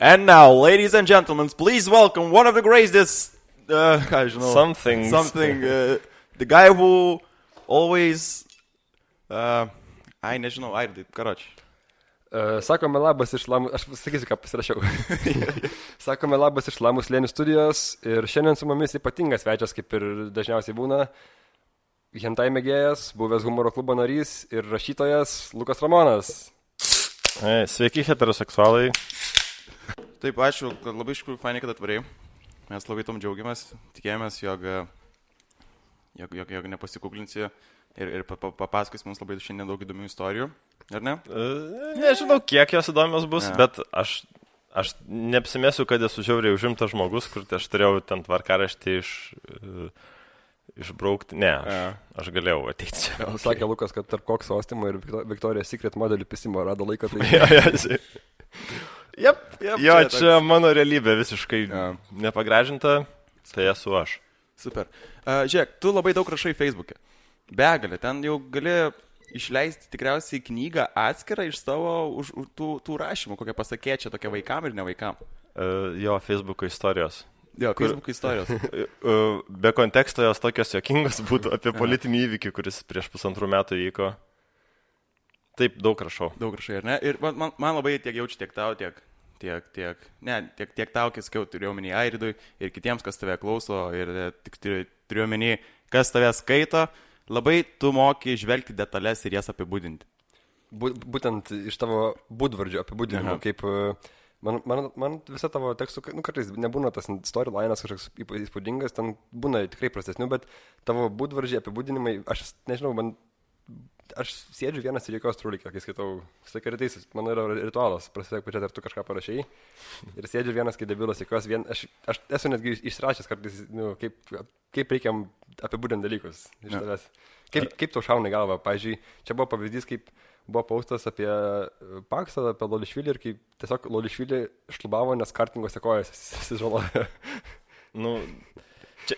And now, ladies and gentlemen, please welcome one of the greatest, Something, the guy who always, nežinau, karoči. Sakome labas iš Lamų, aš sakysiu, ką pasirašiau. Sakome labas iš Lamų slėnių studijos ir šiandien su mumis ypatingas svečias, kaip ir dažniausiai būna, hentai mėgėjas, buvęs humoro klubo narys ir rašytojas Lukas Ramonas. Sveiki, heteroseksualai. Taip, ačiū, kad labai iš tikrųjų fainai, kad atvarėjai. Mes labai tom džiaugiamės, tikėjomės, jog nepasikuklinsi ir papasakos mums labai šiandien daug įdomių istorijų, ar ne? Nežinau, kiek jos įdomios bus, bet aš neapsimėsiu, kad esu žiauriai užimtas žmogus, kur aš turėjau ten tvarkaraštį išbraukti. Ne, aš galėjau ateiti čia. Okay. Sakė Lukas, kad tarp Kokso Ostimo ir Victoria's Secret modelių pisimo rado laiką. Tai... Jo, čia mano realybė visiškai nepagražinta, tai esu aš. Super. Žiūrėk, tu labai daug rašai Facebook'e. Begalė, ten jau gali išleisti tikriausiai knygą atskirą iš savo tų rašymų, kokią pasakėčią tokia vaikam ir ne vaikam. Jo, Facebook'o istorijos. Jo, Facebook'o istorijos. Be konteksto jos tokios jokingos būtų apie politinį įvykį, kuris prieš 1,5 metų vyko. Taip, daug rašau. Daug rašai, ar ne? Ir man labai tiek jaučiu, tiek tau, tiek tau, kai sakiau, turiu omeny Airidui ir kitiems, kas tave klauso ir tik turiu omeny, kas tave skaito, labai tu moki žvelgti detalės ir jas apibūdinti. Būtent iš tavo būdvardžio apibūdinimo, kaip man visa tavo tekstų, kartais nebūna tas storylinas kažkoks įspūdingas, ten būna tikrai prastesnių, bet tavo būdvardžiai apibūdinimai, aš nežinau, aš sėdžiu vienas ir jokios trūlikio, kai skaitau, sakai rytais, mano yra ritualas, prasidėk pačiat, ar tu kažką parašai, ir sėdžiu vienas, kai debilas, jokios aš esu netgi išrašęs kartais, kaip reikia apibūdinti dalykus iš tavęs. Kaip tau šauna į galvą, pavyzdžiui, čia buvo pavyzdys, kaip buvo postas apie Paksą, apie Lolišvilį ir kaip tiesiog Lolišvilį šlubavo, nes kartingose kojas susižalojo.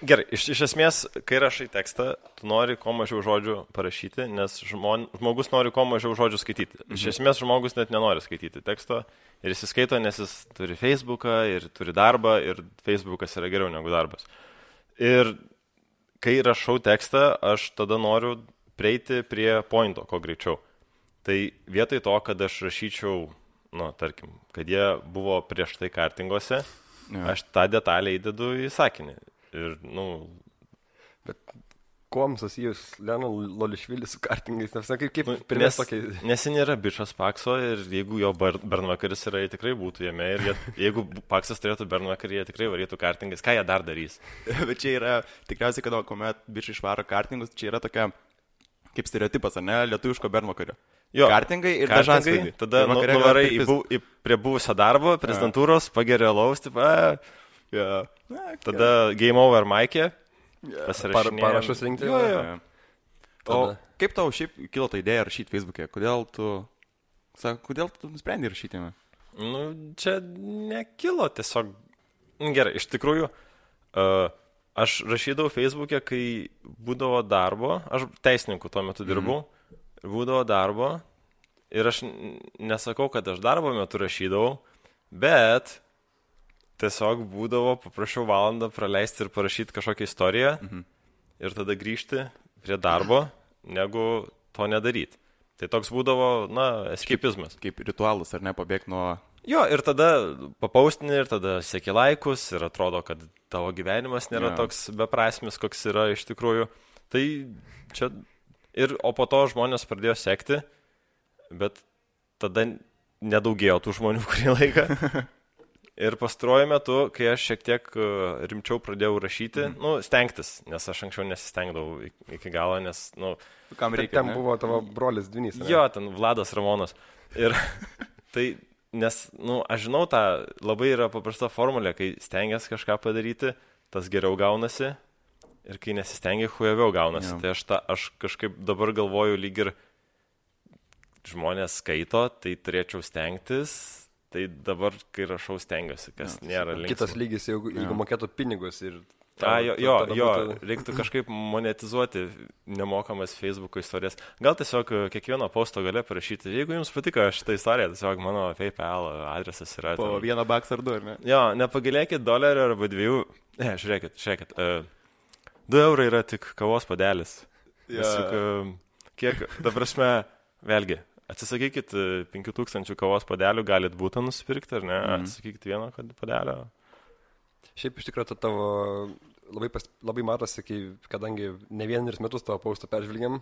Gerai, iš esmės, kai rašai tekstą, tu nori kuo mažiau žodžių parašyti, nes žmogus nori kuo mažiau žodžių skaityti. Iš esmės, žmogus net nenori skaityti teksto ir jis skaito, nes jis turi Facebooką ir turi darbą ir Facebookas yra geriau negu darbas. Ir kai rašau tekstą, aš tada noriu prieiti prie pointo, kuo greičiau. Tai vietoj to, kad aš rašyčiau, tarkim, kad jie buvo prieš tai kartingose, aš tą detalę įdedu į sakinį. Ir, Bet kuom susijus Lolišvilis su kartingais? Nes jis nėra bičas Pakso ir jeigu jo bernvakaris yra, jie tikrai būtų jame. Ir jeigu Paksas turėtų bernvakarį, jie tikrai varytų kartingais. Ką jie dar darys? Bet čia yra, tikriausiai, kad kuomet bičai išvaro kartingus, čia yra tokia, kaip stereotipas, ar ne, lietuviško bernvakario. Jo, kartingai ir dažasvaidai. Tada nuvarai prie buvusio darbo, prezidentūros, pageria laus, tada game over Mike'e, parašus rinkti. O kaip tau šiaip kilo ta idėja rašyti Facebook'e? Kodėl tu nusprendai rašyti jame? Čia nekilo tiesiog. Gerai, iš tikrųjų, aš rašydavau Facebook'e, kai būdavo darbo, aš teisininku tuo metu dirbau, būdavo darbo ir aš nesakau, kad aš darbo metu rašydavau, bet tiesiog būdavo, paprašiau valandą praleisti ir parašyti kažkokią istoriją ir tada grįžti prie darbo, negu to nedaryti. Tai toks būdavo, eskapizmas. Kaip ritualas, ar ne, pabėgti nuo... Jo, ir tada papaustini, ir tada seki laikus, ir atrodo, kad tavo gyvenimas nėra toks beprasmis, koks yra iš tikrųjų. Tai čia... O po to žmonės pradėjo sekti, bet tada nedaugėjo tų žmonių kurį laiką. Ir pastaruoju metu, kai aš šiek tiek rimčiau pradėjau rašyti, stengtis, nes aš anksčiau nesistengdavau iki galo, nes, kam reikia, ten buvo tavo brolis Dvinys. Jo, ten Vladas Ramonas. Ir tai, nes, aš žinau tą, labai yra paprasta formulė, kai stengias kažką padaryti, tas geriau gaunasi, ir kai nesistengia, hujaviau gaunasi. Tai aš kažkaip dabar galvoju, lyg ir žmonės skaito, tai turėčiau stengtis. Tai dabar, kai rašau, stengiuosi, kas nėra linksma. Kitas lygis, jeigu mokėtų pinigus ir Reiktų kažkaip monetizuoti nemokamas Facebook'o istorijas. Gal tiesiog kiekvieno posto gale parašyti, jeigu jums patiko šitą istoriją, tiesiog mano PayPal adresas yra. Po $1 ar 2, ar ne? Jo, nepagailėkit $1 arba 2. Žiūrėkit. 2 eurai yra tik kavos padelis. Kiek, ta prasme, vėlgi, atsisakykit 5000 kavos padelių, galit būtą nusipirkti, ar ne? Atsisakykit vieno padelio. Šiaip iš tikrųjų tavo labai matosi, kadangi ne vienerius metus tavo postą peržvelgiam,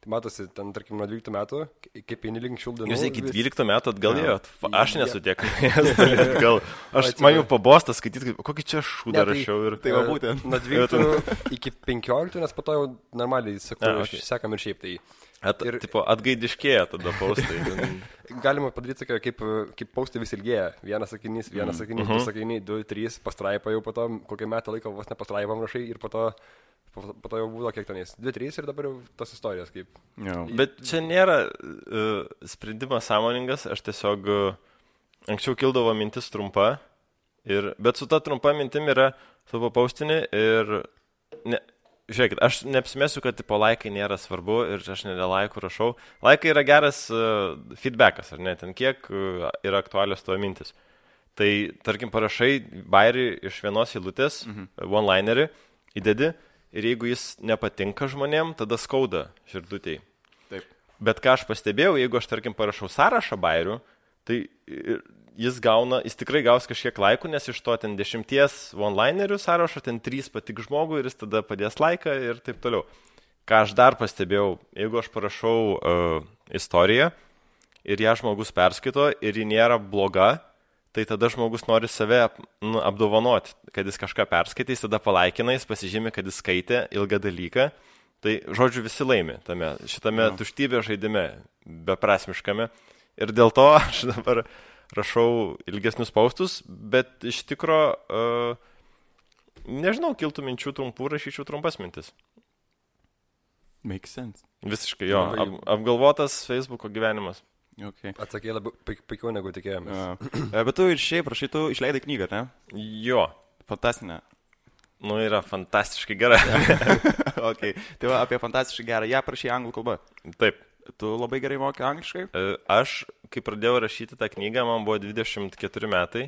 tai matosi ten, tarkim, nuo 12 metų, kaip eini link šių dienų. Jūs iki 12 metų atgal ėjot? Aš nesu tiek atgal. Man jau pabostas skaityti, kokį čia šūdą rašiau. Tai va būtent. Nuo 12 iki 15, nes po to jau normaliai sekam ir šiaip tai. Atgaidiškėja tada postai. Galima padaryti, kaip postai vis ilgėja. Vienas sakinys, du sakiniai, 2, 3, pastraipa jau po to, kokią metą laiko vos nepastraipam rašai ir po to jau būdo kiek tenais. 2, 3 ir dabar jau tos istorijos kaip. Bet čia nėra sprendimas sąmoningas, aš tiesiog anksčiau kildavo mintis trumpa, bet su ta trumpa mintim yra savo paustinį ir žiūrėkit, aš neapsimesiu, kad tipo laikai nėra svarbu ir aš ne dėl laikų rašau. Laikai yra geras feedbackas, ar ne, ten kiek yra aktualios tavo mintis. Tai, tarkim, parašai bairį iš vienos eilutės, one-linerį, įdedi ir jeigu jis nepatinka žmonėm, tada skauda širdutėj. Taip. Bet ką aš pastebėjau, jeigu aš, tarkim, parašau sąrašą bairių, tai jis tikrai gaus kažkiek laikų, nes iš to ten 10 one-linerių sąrašo, ten 3 patik žmogui ir jis tada padės laiką ir taip toliau. Ką aš dar pastebėjau, jeigu aš parašau istoriją ir ją žmogus perskaito ir ji nėra bloga, tai tada žmogus nori save apdovanoti, kad jis kažką perskaitys, tada palaikina, jis pasižymi, kad jis skaitė ilgą dalyką. Tai, žodžiu, visi laimi šitame tuštybė žaidime, beprasmiškame. Ir dėl to aš dabar rašau ilgesnius postus, bet iš tikro, nežinau, kiltų minčių trumpų, rašyčiau trumpas mintis. Makes sense. Visiškai, jo, apgalvotas Facebook'o gyvenimas. Okay. Atsakė labai pikiau negu tikėjomės. Bet tu ir šiaip rašai, tu išleidai knygą, ne? Jo. Fantastinė. Yra fantastiškai gera. Okay. Tai va, apie fantastiškai gerą. Ją prašai anglų kalba. Taip. Tu labai gerai moki angliškai? Aš, kai pradėjau rašyti tą knygą, man buvo 24 metai.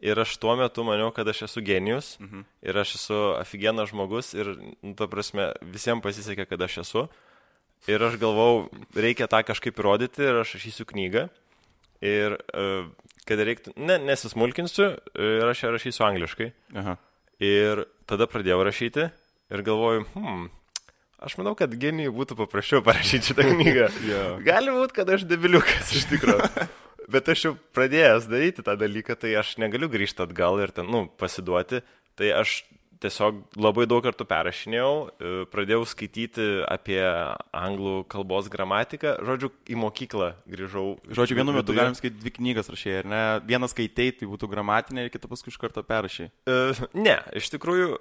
Ir aš tuo metu maniau, kad aš esu genijus. Ir aš esu aфиgenas žmogus. Ir, ta prasme, visiems pasisekė, kad aš esu. Ir aš galvau, reikia tą kažkaip įrodyti ir aš rašysiu knygą. Ir kad reiktų, nesismulkinsiu ir aš ją rašysiu angliškai. Aha. Ir tada pradėjau rašyti ir galvoju, aš manau, kad genijui būtų paprasčiau parašyti šitą knygą. Gali būti, kad aš debiliukas iš tikrųjų. Bet aš jau pradėjęs daryti tą dalyką, tai aš negaliu grįžti atgal ir ten, pasiduoti. Tai aš tiesiog labai daug kartų perrašinėjau, pradėjau skaityti apie anglų kalbos gramatiką. Žodžiu, į mokyklą grįžau. Žodžiu, vienu metu galim skaityti 2 knygas rašėjai, ar ne? Vieną skaitei, tai būtų gramatinė ir kitą paskui iš karto perrašai. Ne, iš tikrųjų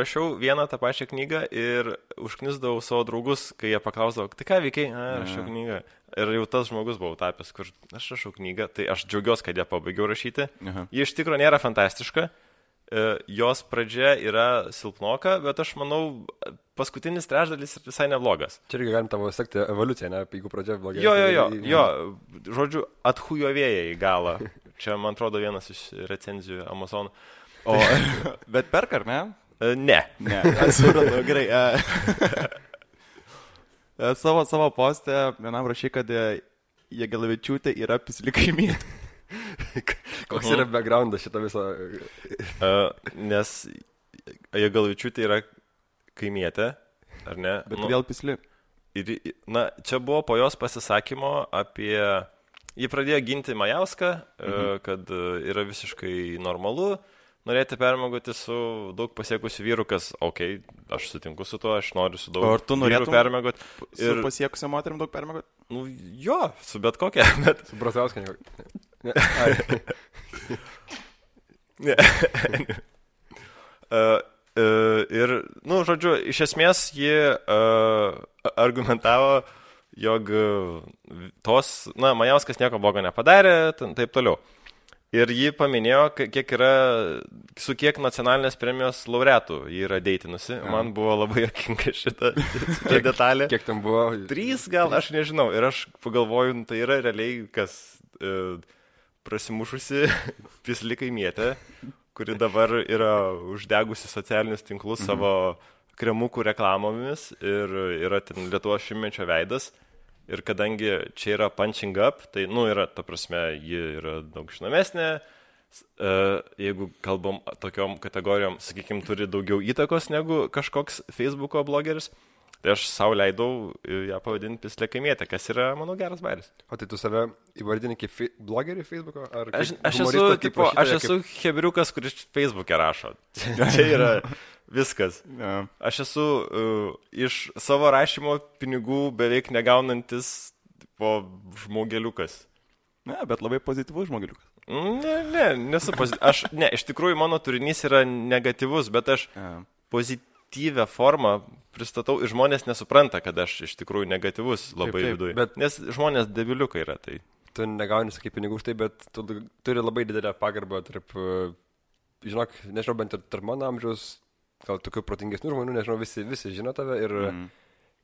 rašiau vieną tą pačią knygą ir užknisdavau savo draugus, kai jie paklausdavo, tai ką veikiai? Rašiau knygą. Ir jau tas žmogus buvau tapęs, kur aš rašau knygą, tai aš džiaugiuosi, kad ją pabaigiau rašyti. Ji iš tikrųjų nėra fantastiška. Jos pradžia yra silpnoka, bet aš manau, paskutinis trečdalis visai neblogas. Čia irgi galim tavo sekti evoliuciją, ne? Jeigu pradžia blogai. Jo, žodžiu, atchujovėja į galą. Čia, man atrodo, vienas iš recenzijų Amazon. Bet perka, ar ne? Ne. Atsiprašau, gerai. Savo postę vienam rašai, kad Jagelavičiūtė yra pisli kaimynė. Koks yra backgroundas šito viso? Nes Jagelavičiūtė yra kaimietė, ar ne? Bet vėl pisli. Čia buvo po jos pasisakymo apie... Ji pradėjo ginti Majauską, kad yra visiškai normalu norėti permiegoti su daug pasiekusiu vyru, kas, aš sutinku su tuo, aš noriu su daug vyrų permiegoti. Su pasiekusiu moterim daug permiegoti? Jo, su bet kokia. Bet... Su Brazauską ne. Ir, žodžiu, iš esmės ji argumentavo, jog Majauskas nieko blogo nepadarė, taip toliau. Ir ji paminėjo, su kiek nacionalinės premijos laureatų ji yra deitinusi. Man buvo labai jokinga šita detalė. Kiek ten buvo? 3 gal, aš nežinau. Ir aš pagalvoju, tai yra realiai kas prasimušusi pisli kaimietė, kuri dabar yra uždegusi socialinius tinklus savo kremukų reklamomis ir yra ten Lietuvos šimtmečio veidas. Ir kadangi čia yra punching up, tai, yra, ta prasme, ji yra daug žinomesnė, jeigu kalbam tokiom kategorijom, sakykime, turi daugiau įtakos negu kažkoks Facebooko blogeris, tai aš savo leidau ją pavadinti pislė kaimietė, kas yra, manau, geras bairis. O tai tu save įvardini kaip blogerį Facebooko? Aš esu hebriukas, kuris Facebook'e rašo. Čia yra... Viskas. Ja. Aš esu iš savo rašymo pinigų beveik negaunantis žmogeliukas. Ne, bet labai pozityvus žmogeliukas. Nesu pozityvus. Iš tikrųjų mano turinys yra negatyvus, bet aš pozityvę formą pristatau ir žmonės nesupranta, kad aš iš tikrųjų negatyvus labai viduje. Nes žmonės debiliukai yra tai. Tu negauni, sakai, pinigų už tai, bet tu turi labai didelę pagarbą tarp, žinok, nežinau, bent ir tarp mano amžiaus, gal tokių protingesnių žmonių, nežinau, visi žino tave ir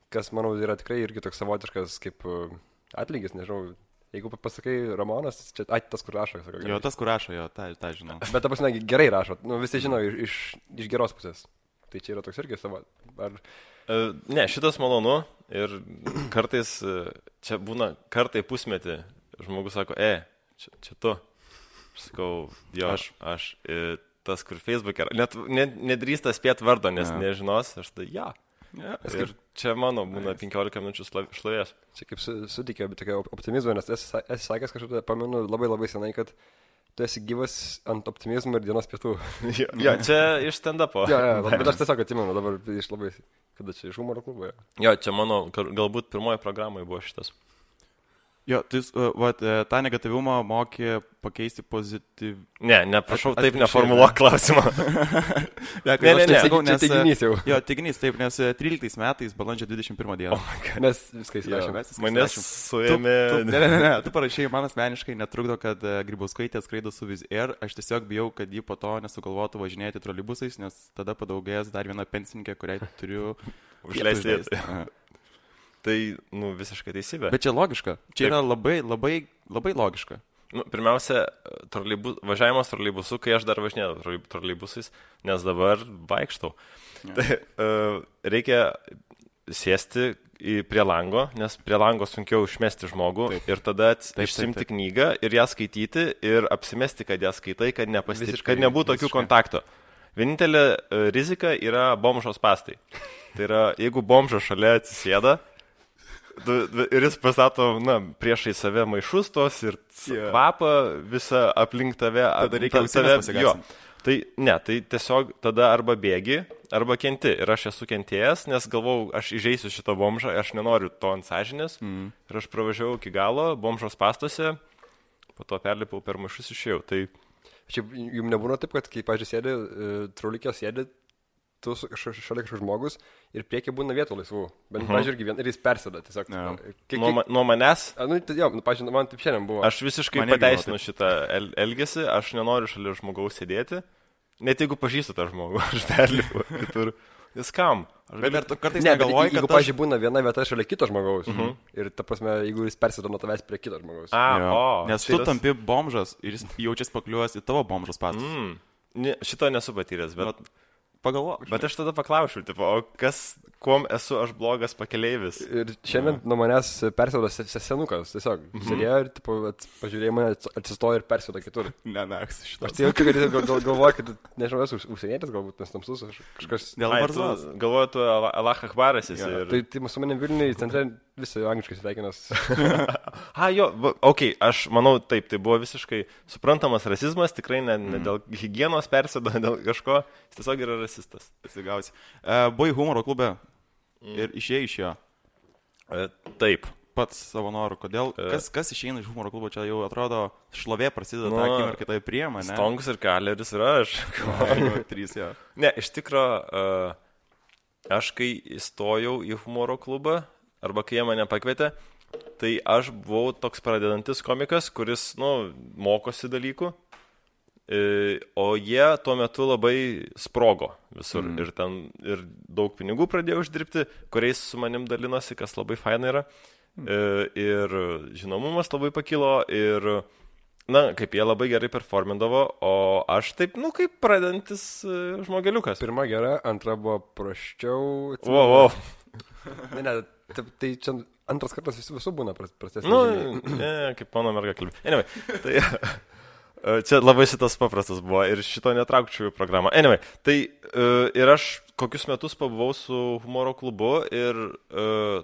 kas, manau, yra tikrai irgi toks savotiškas kaip atlygis, nežinau, jeigu pasakai Ramonas, čia tas, kur rašo. Sako, jo, tas, kur rašo, jo, tą žinau. Bet ta prasme, gerai rašo, visi žino iš geros pusės. Tai čia yra toks irgi savo. Ne, šitas malonu ir kartais, čia būna kartai pusmetį, žmogus sako, čia tu. Aš sakau, jo, aš tas, kur Facebook'e, net nedrįsta spėti vardo, nes nežinos, aš tai Ir čia mano būna 15 minučių šlovės. Čia kaip sutikė, bet tokia optimizmo, nes esi sakęs kažkaip, pamenu labai labai senai, kad tu esi gyvas ant optimizmo ir dienos pietų. Jo, čia iš stand-upo. Bet aš tiesiog atsimenu dabar iš labai, kada čia iš humoro klubo. Jo, čia mano, galbūt pirmoji programai buvo šitas. Jo, tai tą negatyvumą mokė pakeisti pozityv... Ne, prašau, taip neformuluok klausimą. Ne, čia teiginys jau. Jo, teiginys, taip, nes 13 metais, balandžio 21 dieną. Mes viską įsirašėme. Manęs suėmė... Ne, tu parašai, man asmeniškai netrukdo, kad Grybauskaitė skraido su Wizz Air. Aš tiesiog bijau, kad ji po to nesugalvotų važinėti troleibusais, nes tada padaugės dar viena pensininkė, kuriai turiu užleisti. Tai, visiškai teisybė. Bet čia logiška. Čia yra labai, labai, labai logiška. Pirmiausia, važiavimas troleibusu, kai aš dar važinėjau troleibusais, nes dabar vaikštau. Tai reikia sėsti prie lango, nes prie lango sunkiau išmesti žmogų ir tada išsimti knygą ir ją skaityti ir apsimesti, kad ją skaitai, kad nebūtų tokių kontakto. Vienintelė rizika yra bomžos spąstai. Tai yra, jeigu bomžas šalia atsisėda, ir jis pastato, priešai save maišus tos ir kvapą visą aplink tave. Tada reikia pasigarsinti. Tai tiesiog tada arba bėgi, arba kenti. Ir aš esu kentėjęs, nes galvau, aš įžeisiu šitą bomžą, aš nenoriu to ant sąžinės. Ir aš pravažiavau iki galo, bomžos pastuose, po to perlipau per maišus išėjau. Tai... Šiaip jums nebūna taip, kad kai, pažiūrėjau, sėdi, traulikė sėdi, tu šalia kažkoks žmogus ir priekį būna vietų laisvų. Bet, pažiūrėk, ir jis persėda tiesiog. Nuo manęs? Pažiūrėk, man taip šiandien buvo. Aš visiškai pateisinu šitą elgesį, aš nenoriu šalia žmogaus sėdėti. Net jeigu pažįstu tą žmogų, aš perlipu kitur. Jis kam? Bet kartais negalvoji, kad... Jeigu, pažiūrėk, būna viena vieta šalia kito žmogaus. Ir, ta prasme, jeigu jis persėda nuo tavęs prie kito žmogaus. Nes tu tampi bomžas ir jis jaučiasi pakliuojęs į tavo bomžos pastus. Šito nesu patyręs, bet... Pagalvok. Bet aš tada paklausiu, o kuom esu aš blogas pakeleivis? Ir šiandien nuo manęs persėdo senukas, tiesiog. Sėdėjo ir pažiūrėjau mane, atsistojo ir persėdo kitur. Šitą. Aš tai jaučiu, kad jis galvoja, kad, nežinau, esu užsienietis galbūt, nes tamsus, kažkas... Dėl barzdos. Galvoju, tu Allah Akbaras esi. Tai su manim Vilniui centre visai angliškai sveikinas. Aš manau, taip, tai buvo visiškai suprantamas rasizmas, tikrai ne dėl higienos persėdo, dėl kažko, jis tiesiog yra rasistas. Buvai humoro klube ir išėjai iš jo. Taip. Pats savo noru. Kodėl? Kas išeina iš humoro klubo? Čia jau atrodo šlovė prasideda tą akimirką, kai tai priema, ne? Stongus ir Kaleris ir aš. 3, jo. Ne, iš tikro, aš kai įstojau į humoro klubą, arba kai jie mane pakvietė, tai aš buvau toks pradedantis komikas, kuris, mokosi dalykų. o jie tuo metu labai sprogo visur. Ir daug pinigų pradėjo uždirbti, kuriais su manim dalinosi, kas labai faina yra. Ir žinomumas labai pakilo ir, kaip jie labai gerai performindavo, o aš taip, kaip pradedantis žmogeliukas. Pirma gera, antra buvo prasčiau. Wow. Ne, tai čia antras kartas visų būna prastesnis. Kaip mano merga kalbė. Anyway, tai čia labai šitas paprastas buvo ir šito netraukčiau į programą. Anyway, tai ir aš kokius metus pabuvau su humoro klubu ir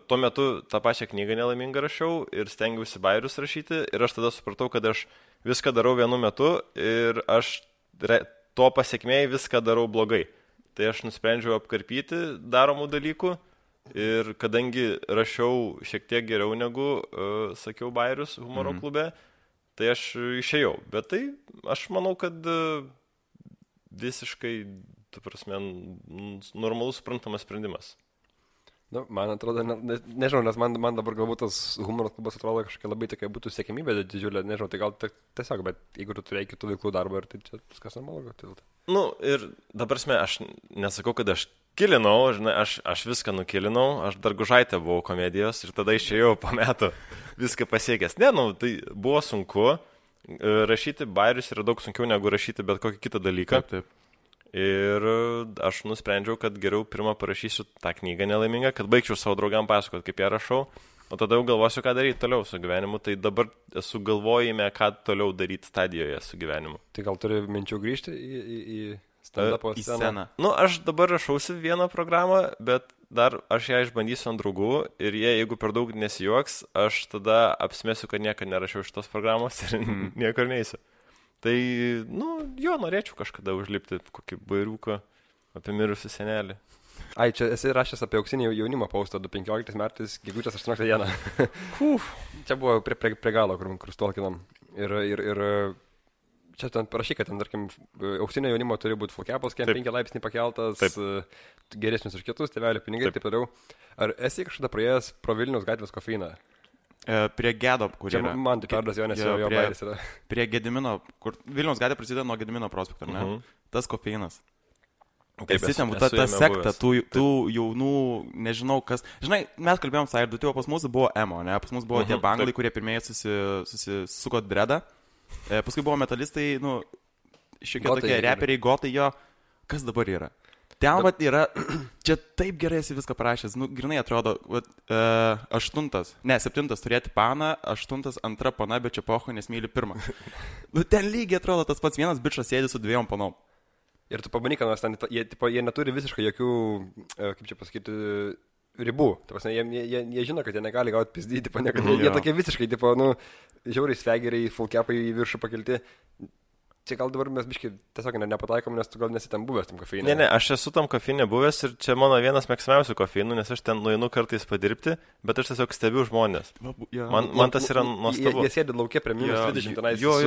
tuo metu tą pačią knygą nelaimingą rašiau ir stengiausi bajerius rašyti ir aš tada supratau, kad aš viską darau vienu metu ir aš to pasiekmėj viską darau blogai. Tai aš nusprendžiau apkarpyti daromų dalykų ir kadangi rašiau šiek tiek geriau negu sakiau bajerius humoro klube, tai aš išėjau. Bet tai aš manau, kad visiškai, tu prasme, normalus suprantamas sprendimas. Man atrodo, nežinau, nes man dabar galbūt tas humoro klubas atrodo kažkokia labai tokia būtų siekimybė didžiulė, nežinau, tai gal tiesiog, bet jeigu tu turėjai kitų veiklų darbą, tai čia viskas normalu. Ir dabar aš nesakau, kad aš kilinau, žinai, aš viską nukilinau, aš dar Gužaitė buvau komedijos ir tada išėjau po metų viską pasiekęs. Tai buvo sunku, rašyti bajerius yra daug sunkiau negu rašyti bet kokį kitą dalyką. Taip. Ir aš nusprendžiau, kad geriau pirmą parašysiu tą knygą nelaimingą, kad baigčiau savo draugam pasakoti, kaip ją rašau, o tada jau galvosiu, ką daryti toliau su gyvenimu. Tai dabar esu galvojime, ką toliau daryti stadijoje su gyvenimu. Tai gal turi minčių grįžti į stand-upo sceną? Aš dabar rašausi vieną programą, bet dar aš ją išbandysiu ant draugų ir jie, jeigu per daug nesijuoks, aš tada apsimesiu, kad niekada nerašiau šitos programos ir niekur neįsiu. Tai, norėčiau kažkada užlipti kokį bairiuką apie mirusių senelį. Čia esi rašęs apie auksinį jaunimo postą 2015 metais, gegužės 18 dieną. Čia buvo prie galo, kur stolkinam. Ir čia ten parašy, kad ten, tarkim, auksinio jaunimo turi būti full-capas, 5 laipsnį pakeltas, geresnis už kitus, tėvelio pinigai ir taip toliau. Ar esi kažkada praėjęs pro Vilniaus gatvės kofeiną? Prie Gedo, kur yra. Man tai perdas jo, nes jo bairis yra. Prie Gedimino, kur Vilniaus gatvė prasideda nuo Gedimino prospekto, ne? Tas kofeinas. Esi ten, ta sekta, tų jaunų, nežinau kas. Žinai, mes kalbėjom sąjūdų, tai pas mus buvo emo, ne? Pas mus buvo tie banglai, kurie pirmieji susisuko dredą. Paskui buvo metalistai, šiokie tokie reperiai, gotai jo. Kas dabar yra? Ten yra, čia taip gerai esi viską parašęs, grinai atrodo, 7 turėti paną, 8 antra pana, bet čia pocho, nes myli pirmą. Ten lygiai atrodo tas pats vienas bičas sėdi su 2 panom. Ir tu pabandyk, nes ten jie neturi visiškai jokių, kaip čia pasakyti, ribų. Jie žino, kad jie negali gauti pizdyti, jie tokie visiškai, žiauriai svegeriai, full-capai į viršų pakelti. Čia gal dabar mes biškai tiesiog nepataikom, nes tu gal nesi ten buvęs tam kofeinė. Ne, aš esu tam kofeinė buvęs ir čia mano vienas mėgstamiausių kofeinų, nes aš ten nueinu kartais padirbti, bet aš tiesiog stebiu žmonės. Man tas yra nuostabu. Jie sėdi laukia prie -20 tenais. Jo.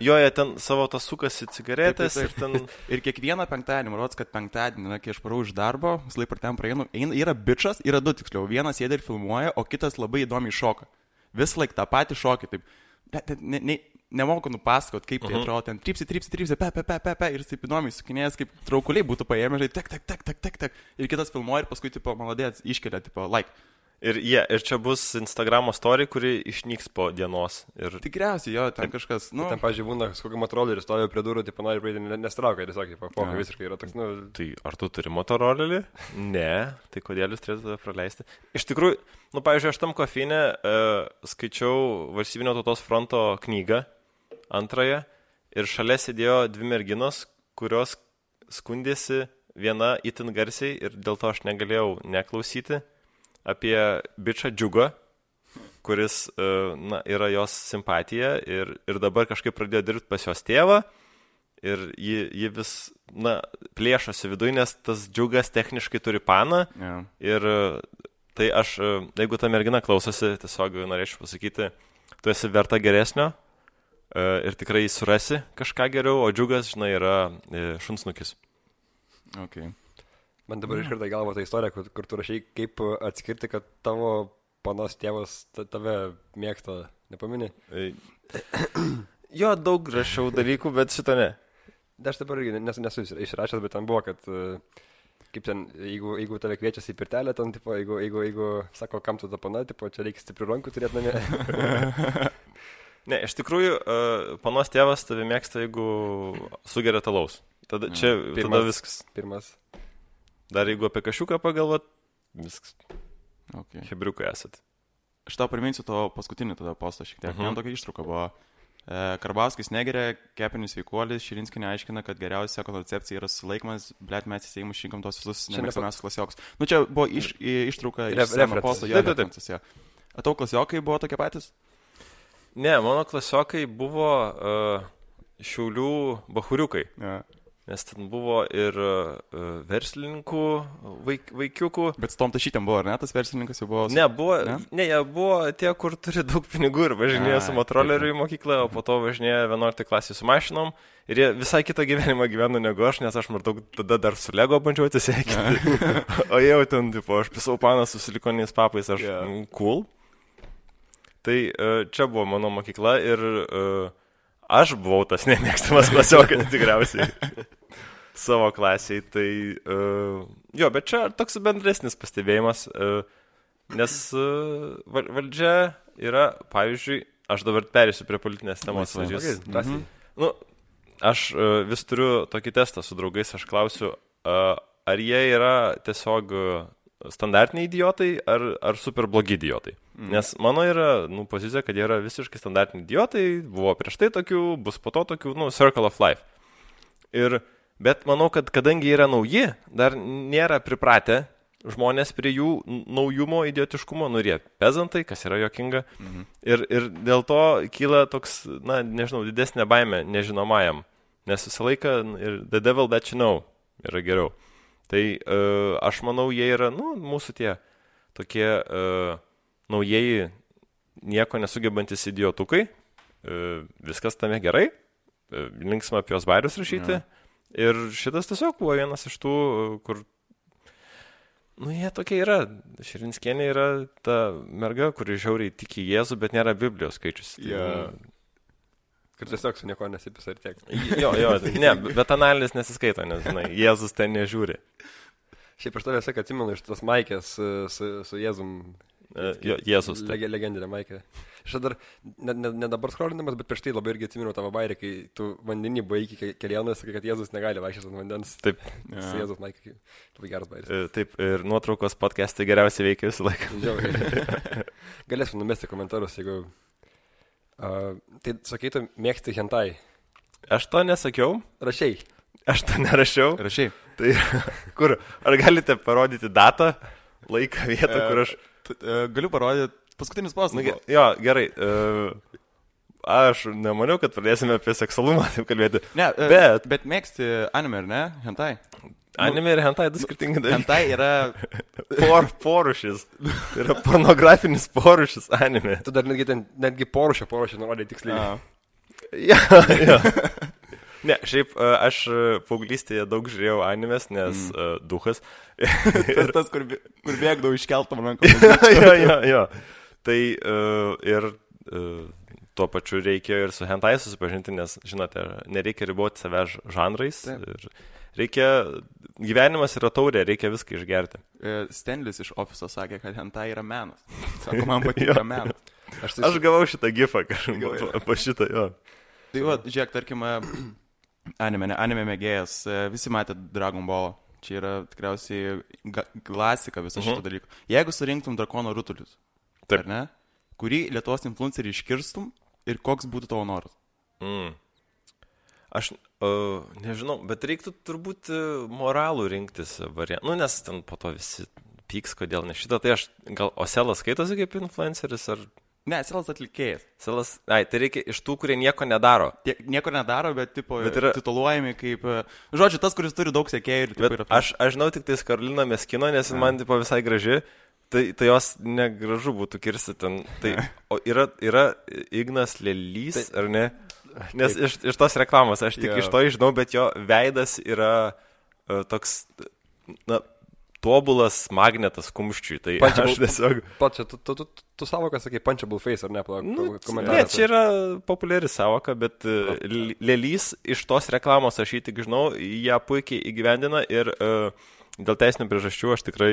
Jie ten savo tas sukasi cigaretės ir ten... Ir kiekvieną penktadienį, man rodos, kad penktadienį, kai aš parau iš darbo, visą laiką per ten praeinu, yra bičas, yra 2 tiksliau. Vienas sėdi ir filmuoja, o kitas labai įdomiai šoka. Visą laiką tą patį šokį, taip. Nemoku nupasakot, kaip tai atrodo, ten trypsi, pe, ir taip įdomiai sukinėjęs, kaip traukuliai būtų paėmę, tak. Ir kitas filmuoja ir paskui, maladėts, iškelia, like. Ir čia bus Instagramo story, kuri išnyks po dienos. Ir... Tikriausiai, jo, ten kažkas, Ten, pavyzdžiui, būna kokį motorolerį, stovi prie durų, nori praeiti, nestraukia, tiesiog, pokai visiškai yra toks, Tai ar tu turi motorolerį? Ne, tai kodėl jūs turėtumėte praleisti? Iš tikrųjų, pavyzdžiui, aš tam kofeinė skaičiau Valstybinio tautos fronto knygą, antrąją, ir šalia sėdėjo 2 merginos, kurios skundėsi viena itin garsiai ir dėl to aš negalėjau neklausyti apie bičą Džiugą, kuris yra jos simpatija ir dabar kažkaip pradėjo dirbti pas jos tėvą ir ji vis plėšosi viduje, nes tas Džiugas techniškai turi paną ir tai aš, jeigu ta mergina klausosi, tiesiog norėčiau pasakyti, tu esi verta geresnio ir tikrai surasi kažką geriau, o Džiugas, žinai, yra šunsnukis. Okay. Man dabar iškarta į galvą ta istorija, kur tu rašai, kaip atskirti, kad tavo panos tėvas tave mėgsta, nepamini? Jo, daug rašiau dalykų, bet šito ne. Aš dabar irgi nesu išrašęs, bet ten buvo, kad kaip ten, jeigu tave kviečiasi į pirtelę, ten, tipo, jeigu sako, kam tu tapana, tipo, čia reikia stiprių rankų turėti namie. Ne, iš tikrųjų, panos tėvas tave mėgsta, jeigu sugeria talaus. Tada tada viskas. Pirmas. Dar jeigu apie kašiuką pagalvot, viskas. Okay. Hebriukai esat. Aš tau priminsiu to paskutinį tada postą šiek tiek. Vien tokia ištrauka buvo. Karbauskis negeria, kepenis sveikuolis, Širinskienė aiškina, kad geriausia koncepcija yra sulaikymas, blėt mes į Seimą šinkom tos visus nemėgstamiausius klasiokus. Nu čia buvo ištrauka iš seno posto. Taip. A tau klasiokai buvo tokie patys? Ne, mano klasiokai buvo Šiaulių bachuriukai. Ja. Nes ten buvo ir verslininkų vaikiukų. Bet su tom tašytėm buvo, ar ne? Tas verslininkas jau buvo... Ne, jie buvo tie, kur turi daug pinigų ir važinėjo su motoroleriu į mokyklą, o po to važinėjo 11 klasėje su mašinom. Ir jie visai kitą gyvenimą gyveno negu aš, nes aš maždaug tada dar su Lego bandžiau atsisveikinti. O jau ten, tipo, aš pisau paną su silikoniais papais, aš cool. Tai čia buvo mano mokykla ir aš buvau tas nemėgstamas klasiokas tikriausiai. Savo klasiai, tai jo, bet čia toks bendresnis pastebėjimas, nes valdžia yra, pavyzdžiui, aš dabar perėsiu prie politinės temos. Nu, aš vis turiu tokį testą su draugais, aš klausiu, ar jie yra tiesiog standartiniai idiotai ar super blogi idiotai. Nes mano yra pozicija, kad jie yra visiškai standartiniai idiotai, buvo prieš tai tokių, bus po to tokių, circle of life. Bet manau, kad kadangi yra nauji, dar nėra pripratę žmonės prie jų naujumo, idiotiškumo, ir jie pezantai, kas yra jokinga. Ir dėl to kyla toks, nežinau, didesnė baimė nežinomajam. Nes visą laiką ir the devil that you know yra geriau. Tai aš manau, jie yra, mūsų tie tokie naujieji, nieko nesugebantis idiotukai. Viskas tame gerai. Linksma apie jos bairius rašyti. Ir šitas tiesiog buvo vienas iš tų, kur, jie tokie yra. Širinskienė yra ta merga, kuri žiauriai tiki Jėzų, bet nėra Biblijos skaičius. Kur tiesiog su nieko nesipisa ir tiek. Jo, ne, bet analizės nesiskaito, nes, Jėzus ten nežiūri. Šiaip aš tavęs atsimenu iš tos maikės su Jėzum. Jėzus. Legendinė maikė. Aš dar, ne dabar skrolinamas, bet prieš tai labai irgi atsimenu tavo bairį, kai tu vandenį buvai iki kelionų, sakai, kad Jėzus negali vaikščioti ant vandens. Taip. Su Jėzus maikė. Labai geras bairis. Taip, ir nuotraukos podcastai geriausiai veikia visą laiką. Galėsim numesti komentarus, jeigu... Tai sakai, tu mėgsti hentai. Aš to nesakiau. Rašiai. Aš to nerašiau. Rašiai. Tai kur? Ar galite parodyti datą, laiką, vietą, kur aš... Galiu parodyti paskutinis postas. Jo, gerai. Aš nemaniau, kad pradėsime apie seksualumą taip kalbėti. Ne, bet mėgsti anime, ar ne? Hentai. Anime ir hentai du skirtingi dalykai. Hentai yra... Porušis. Tai yra pornografinis porušis anime. Tu dar netgi porušį nurodai tiksliai. Jo. Ne, šiaip aš paauglystėje daug žiūrėjau animes, nes duhas. Tas, kur bėgdavau iškeltam rankom. Jo. Tai ir tuo pačiu reikia ir su hentai susipažinti, nes, žinote, nereikia riboti savęs žanrais. Gyvenimas yra taurė, reikia viską išgerti. Stanlis iš ofiso sakė, kad hentai yra menas. Sako, man patinka menas. Aš gavau šitą gifą kažkaip po šitą, jo. Tai va, žiūrėk, tarkim, anime mėgėjas, visi matė Dragon Ball. Čia yra tikriausiai klasika viso šito dalyko. Jeigu surinktum drakono rutulius, ar ne, kurį Lietuvos influencerį iškirstum ir koks būtų tavo noras? Aš nežinau, bet reiktų turbūt moralų rinktis variantą. Nes ten po to visi pyks, kodėl ne šitą. Tai aš gal Oselas skaitosi kaip influenceris ar... Ne, Selas atlikėjas. Tai reikia iš tų, kurie nieko nedaro. Nieko nedaro, bet yra tituluojami kaip... Žodžiu, tas, kuris turi daug sekėjų. Aš žinau tik tais Karoliną Meskino, nes man visai graži. Tai jos negražu būtų kirsti ten. O yra Ignas Lelys, ar ne? Nes iš tos reklamos aš tik iš to žinau, bet jo veidas yra toks... tobulas magnetas kumščiui. Tai aš tiesiog... Pačia, tu savoką sakai punchable face, ar ne? Ne, čia yra populiari savoka, bet lėlys iš tos reklamos aš jį tik žinau, ją puikiai įgyvendina ir dėl teisinių priežasčių aš tikrai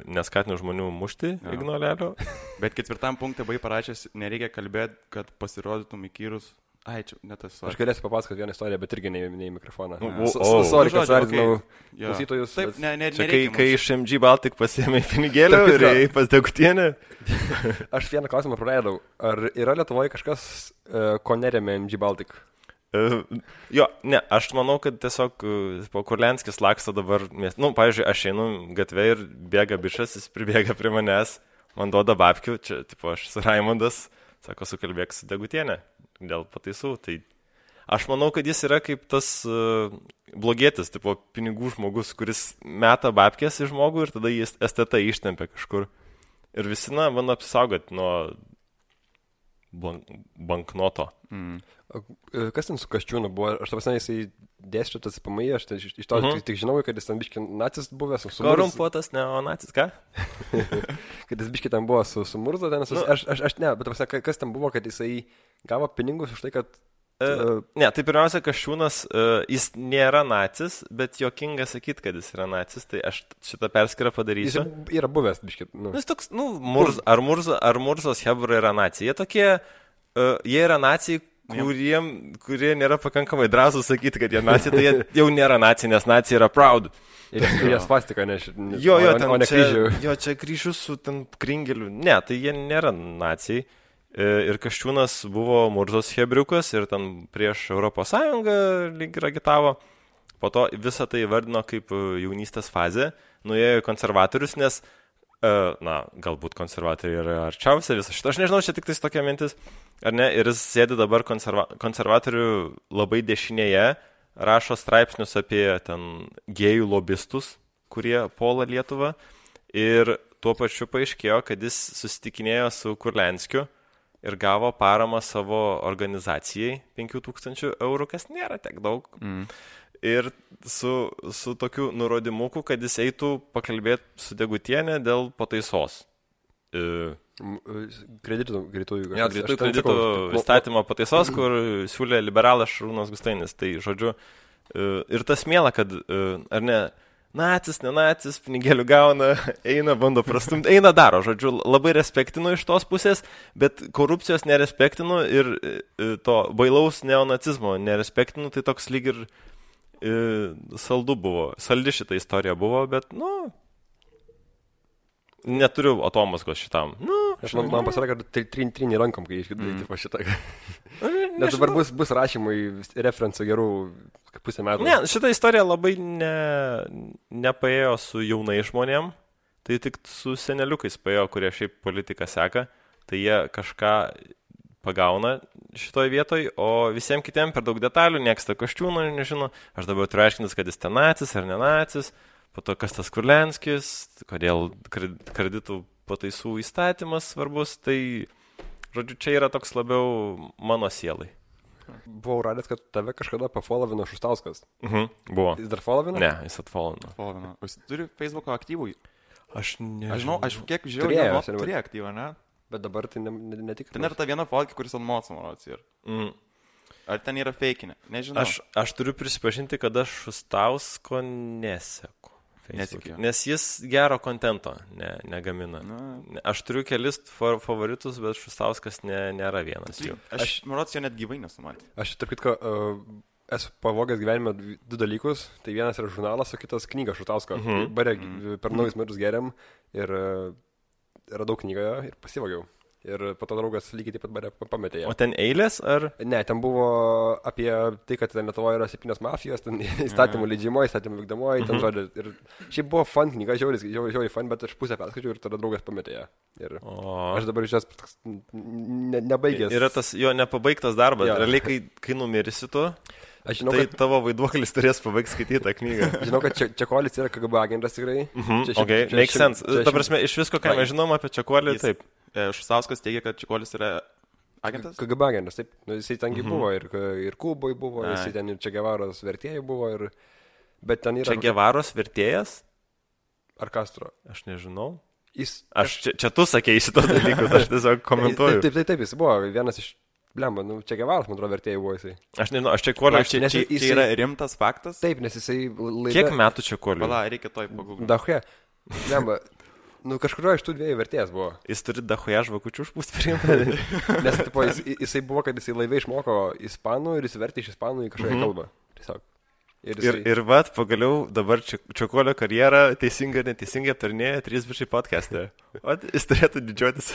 neskatinu žmonių mušti ignolelio. Bet 4 punktą buvai parašęs, nereikia kalbėti, kad pasirodytum įkyrus. Ai, čia netas. Aš galėsiu papasakoti vieną istoriją, bet irgi ne į mikrofoną. Sorry, kad sardinau klausytojus. Taip, čia kai iš MG Baltic pasiėmė pinigėlį ir ėjai pas Degutienę. Aš vieną klausimą praleidau. Ar yra Lietuvoje kažkas, ko neremia MG Baltic? Jo, ne, aš manau, kad tiesiog Kurlianskis laksto dabar, pavyzdžiui, aš einu gatvę ir bėga bišas, jis pribėga prie manęs, man duoda babkių, čia, aš esu Raimondas, sako, sukalbėk su Degutienė dėl pataisų, tai aš manau, kad jis yra kaip tas blogietis, pinigų žmogus, kuris meta babkės į žmogų ir tada jis STT ištempia kažkur. Ir visi, bando apsisaugoti nuo banknoto. Kas ten su Kasčiūnu buvo? Aš tavasnai jisai dėstytas PMI, aš iš to tik žinau, kad jis ten biški nacis buvęs. Korumpuotas neonacis, ką? Kad jis biški ten buvo su Murza, ten aš ne, bet tavasnai, kas ten buvo, kad jisai gavo pinigus už tai, kad... Ne, tai pirmiausia, Kasčiūnas, jis nėra nacis, bet jokinga sakyti, kad jis yra nacis, tai aš šitą perskirą padarysiu. Jis yra buvęs, biški. Jis toks, ar Murzos hebra yra nacija. Jie tokie, jie yra nacijai, kurie nėra pakankamai drąsūs sakyti, kad jie nacija, tai jie jau nėra nacija, nes nacija yra proud. Ir jie svastika, o ne kryžių. Jo, čia kryžius su ten kringeliu. Ne, tai jie nėra nacijai. Ir Kasčiūnas buvo Murzos hebriukas ir ten prieš Europos Sąjungą lyg ir agitavo. Po to visą tai vardino kaip jaunystės fazė. Nuėjo į konservatorius, nes, galbūt konservatoriai yra arčiausia visą šitą. Aš nežinau, čia tik tais tokia mintis, ar ne? Ir jis sėdi dabar konservatorių labai dešinėje, rašo straipsnius apie ten gėjų lobistus, kurie puola Lietuvą. Ir tuo pačiu paaiškėjo, kad jis susitikinėjo su Kurlianskiu ir gavo paramą savo organizacijai 5000 eurų, kas nėra tiek daug. Ir su tokiu nurodymuku, kad jis eitų pakalbėti su Degutienė dėl pataisos. Kreditų įstatymo pataisos, kur siūlė liberalas Šarūnas Gustainis. Tai, žodžiu, ir tas miela, kad, ar ne, nacis, nenacis, pinigėlių gauna, eina, bando prastumti, eina daro, žodžiu, labai respektinu iš tos pusės, bet korupcijos nerespektinu ir to bailaus neonacizmo nerespektinu, tai toks lyg ir saldi šitą istoriją buvo, bet, neturiu atomaskos šitam. Man pasakė, kad trini rankom, kai išgirdai po šitą. Nes dabar bus rašymai referencų gerų pusę metų. Ne, šitą istoriją labai nepaėjo su jaunai žmonėm, tai tik su seneliukais paėjo, kurie šiaip politiką seka, tai jie kažką pagauna šitoj vietoj, o visiems kitiem per daug detalių, nieks tą Kasčiūną nežino, aš dabar turiu aiškintis, kad jis ten nacis ar nenacis, po to kas tas Kurlianskis, kodėl kreditų pataisų įstatymas svarbus, tai, žodžiu, čia yra toks labiau mano sielai. Buvau radęs, kad tave kažkada pafollowino Šustauskas. Buvo. Jis dar followino? Ne, jis atfollowino. Jis turi Facebook'o aktyvų? Aš nežinau. Aš kiek žiūrėjau, turėjo aktyvą, ne? Bet dabar tai netikrai. Ten yra ta viena fotkė, kuris ant moco, manau, ir. Ar ten yra feikinė? Nežinau. Aš turiu prisipažinti, kad aš Šustausko neseku. Nesikiu. Nes jis gero kontento negamina. Aš turiu kelis favoritus, bet Šustauskas nėra vienas jų. Aš manau, jo net gyvai nesumatė. Aš tarp kitko esu pavogęs gyvenime 2 dalykus. Tai vienas yra žurnalas, o kitas knyga Šustausko. Bare per naujus metus geriam ir radau knygą ir pasivogiau. Ir po to draugas lygiai taip pat bare pametė ją. O ten eilės ar? Ne, ten buvo apie tai, kad Lietuvoje yra 7 mafijos, ten įstatymų leidžiamoji, įstatymų vykdomoji, ten žodžiu. Ir šiaip buvo fun knyga, žiauriai fun, bet aš pusę perskaičiau ir tada draugas pametė ją. Ir aš dabar iš jas nebaigęs. Yra tas jo nepabaigtas darbas. Ja. Realiai, kai numirisi tu, žinau, tai tavo vaiduoklis turės pabaigti skaityti tą knygą. Žinau, kad Čekolis yra KGB agentas tikrai. Makes sense. Ta prasme, iš visko, ką mes žinom apie Čekolį, taip. Šustauskas teigia, kad Čekolis yra agentas? KGB agentas, taip. Jisai tengi buvo ir Kuboj buvo, jisai ten ir Čegevaros vertėjai buvo. Bet ten yra... Čegevaros vertėjas? Ar Castro? Aš nežinau. Jis... Čia tu sakei šitos dalykus, aš tiesiog komentuoju. Taip, jis buvo vienas iš... Blemba, Che Guevaras, man atrodo, vertėjai buvo jisai. Aš nežinau, aš Čekuolio... Čia yra rimtas faktas? Taip, nes jisai... Kiek metų Čekuolio? Pala, reikia toj pagūglinti. Dachuje. Blemba, kažkurio iš tų dviejų vertėjas buvo. Jis turi Dachuje žvakučių užpūsti priimti. Nes tipo, jisai buvo, kad jisai laivai išmoko ispanų ir jis vertė iš ispanų į kažkokią kalbą. Tiesiog. Ir vat, pagaliau dabar Čekuolio karjerą teisingai ir neteisingai aptarnėja 3 bičiai podcast'e. O jis turėtų didžiuotis.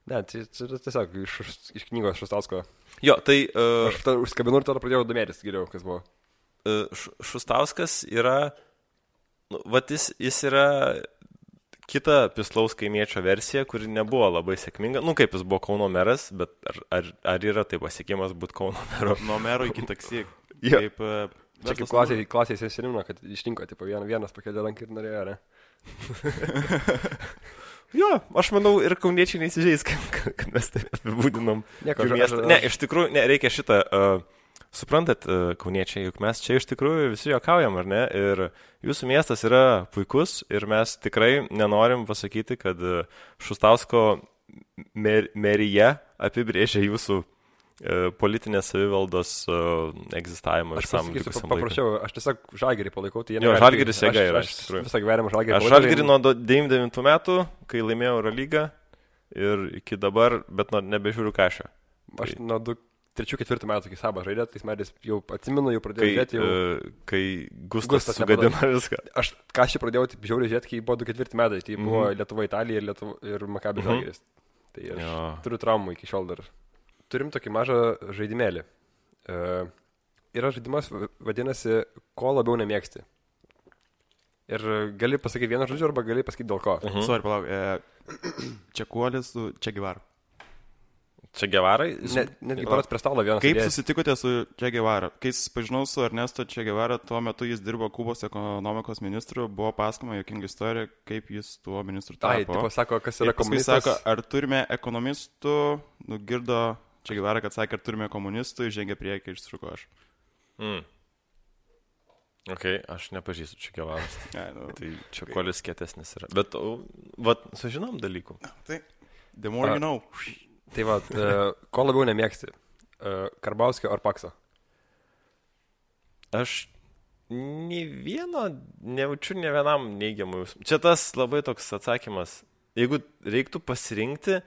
Ne, čia tiesiog iš knygos Šustausko. Jo, tai... Aš užskabinu ir tada pradėjau domėtis geriau, kas buvo. Šustauskas yra... Vat jis yra kita Pislaus kaimiečio versija, kuri nebuvo labai sėkminga. Kaip jis buvo Kauno meras, bet ar yra tai pasiekimas būti Kauno mero? Nuo mero iki taksi. Kaip... Čia kaip klasės senimino, kad išrinko, tipo, vienas pakėlė ranką ir norėjo, ne? Jo, aš manau, ir kauniečiai neįsižeis, kad mes tai apibūdinom. Ne, iš tikrųjų, reikia šitą, suprantat, kauniečiai, juk mes čia iš tikrųjų visi juokaujam, ar ne? Ir jūsų miestas yra puikus ir mes tikrai nenorim pasakyti, kad Šustausko merija apibrėžia jūsų politinės savivaldos egzistavimą ir sam likusiam laikui. Paprašiau, aš tiesiog Žalgirį palaikau. Tai jo, Žalgiris jėga yra. Aš visą gyvenimą Žalgirį palaikau. Aš Žalgirį nuo 99 metų, kai laimėjau Eurolygą ir iki dabar, bet nebežiūriu kažką. Aš nuo 3-4 metų iki Sabą žaidė, tais metais jau atsimenu, jau pradėjau žiūrėti. Kai Gustas sugadino viską. Aš kažkaip pradėjau taip žiauriai žiūrėti, kai buvo 2-4 metai. Tai buvo Lietuva, Italija ir Maccabi Žalgiris. Tai aš turiu traumų iki šiol dar. Turim tokį mažą žaidimėlį. Yra žaidimas, vadinasi, ko labiau nemėgsti. Ir gali pasakyti vieną žodžiu, arba gali pasakyti dėl ko. Sorry, palauk. Čekuolis su Che Guevara. Che Guevarai? Netgi paras prie stalo vienas. Kaip susitikote su Che Guevara? Kai susipažinau su Ernesto Che Guevara, tuo metu jis dirbo Kubos ekonomikos ministru, buvo pasakoma jokinga istorija, kaip jis tuo ministru tapo. Tipo sako, kas yra komunistas. Sako, ar turime ekonomistų, nugirdo Che Guevara, kad sakė, ar turime komunistų, žengė priekį, išsisuko aš. Ok, aš nepažįstu Che Guevaras. Tai Čekuolis kietesnis yra. Bet, vat, sužinom dalykų. Tai, the more you know. Tai va, ko labiau nemėgsti? Karbauskio ar Pakso? Aš nejaučiu ne vienam neigiamų jausmų. Čia tas labai toks atsakymas. Jeigu reiktų pasirinkti,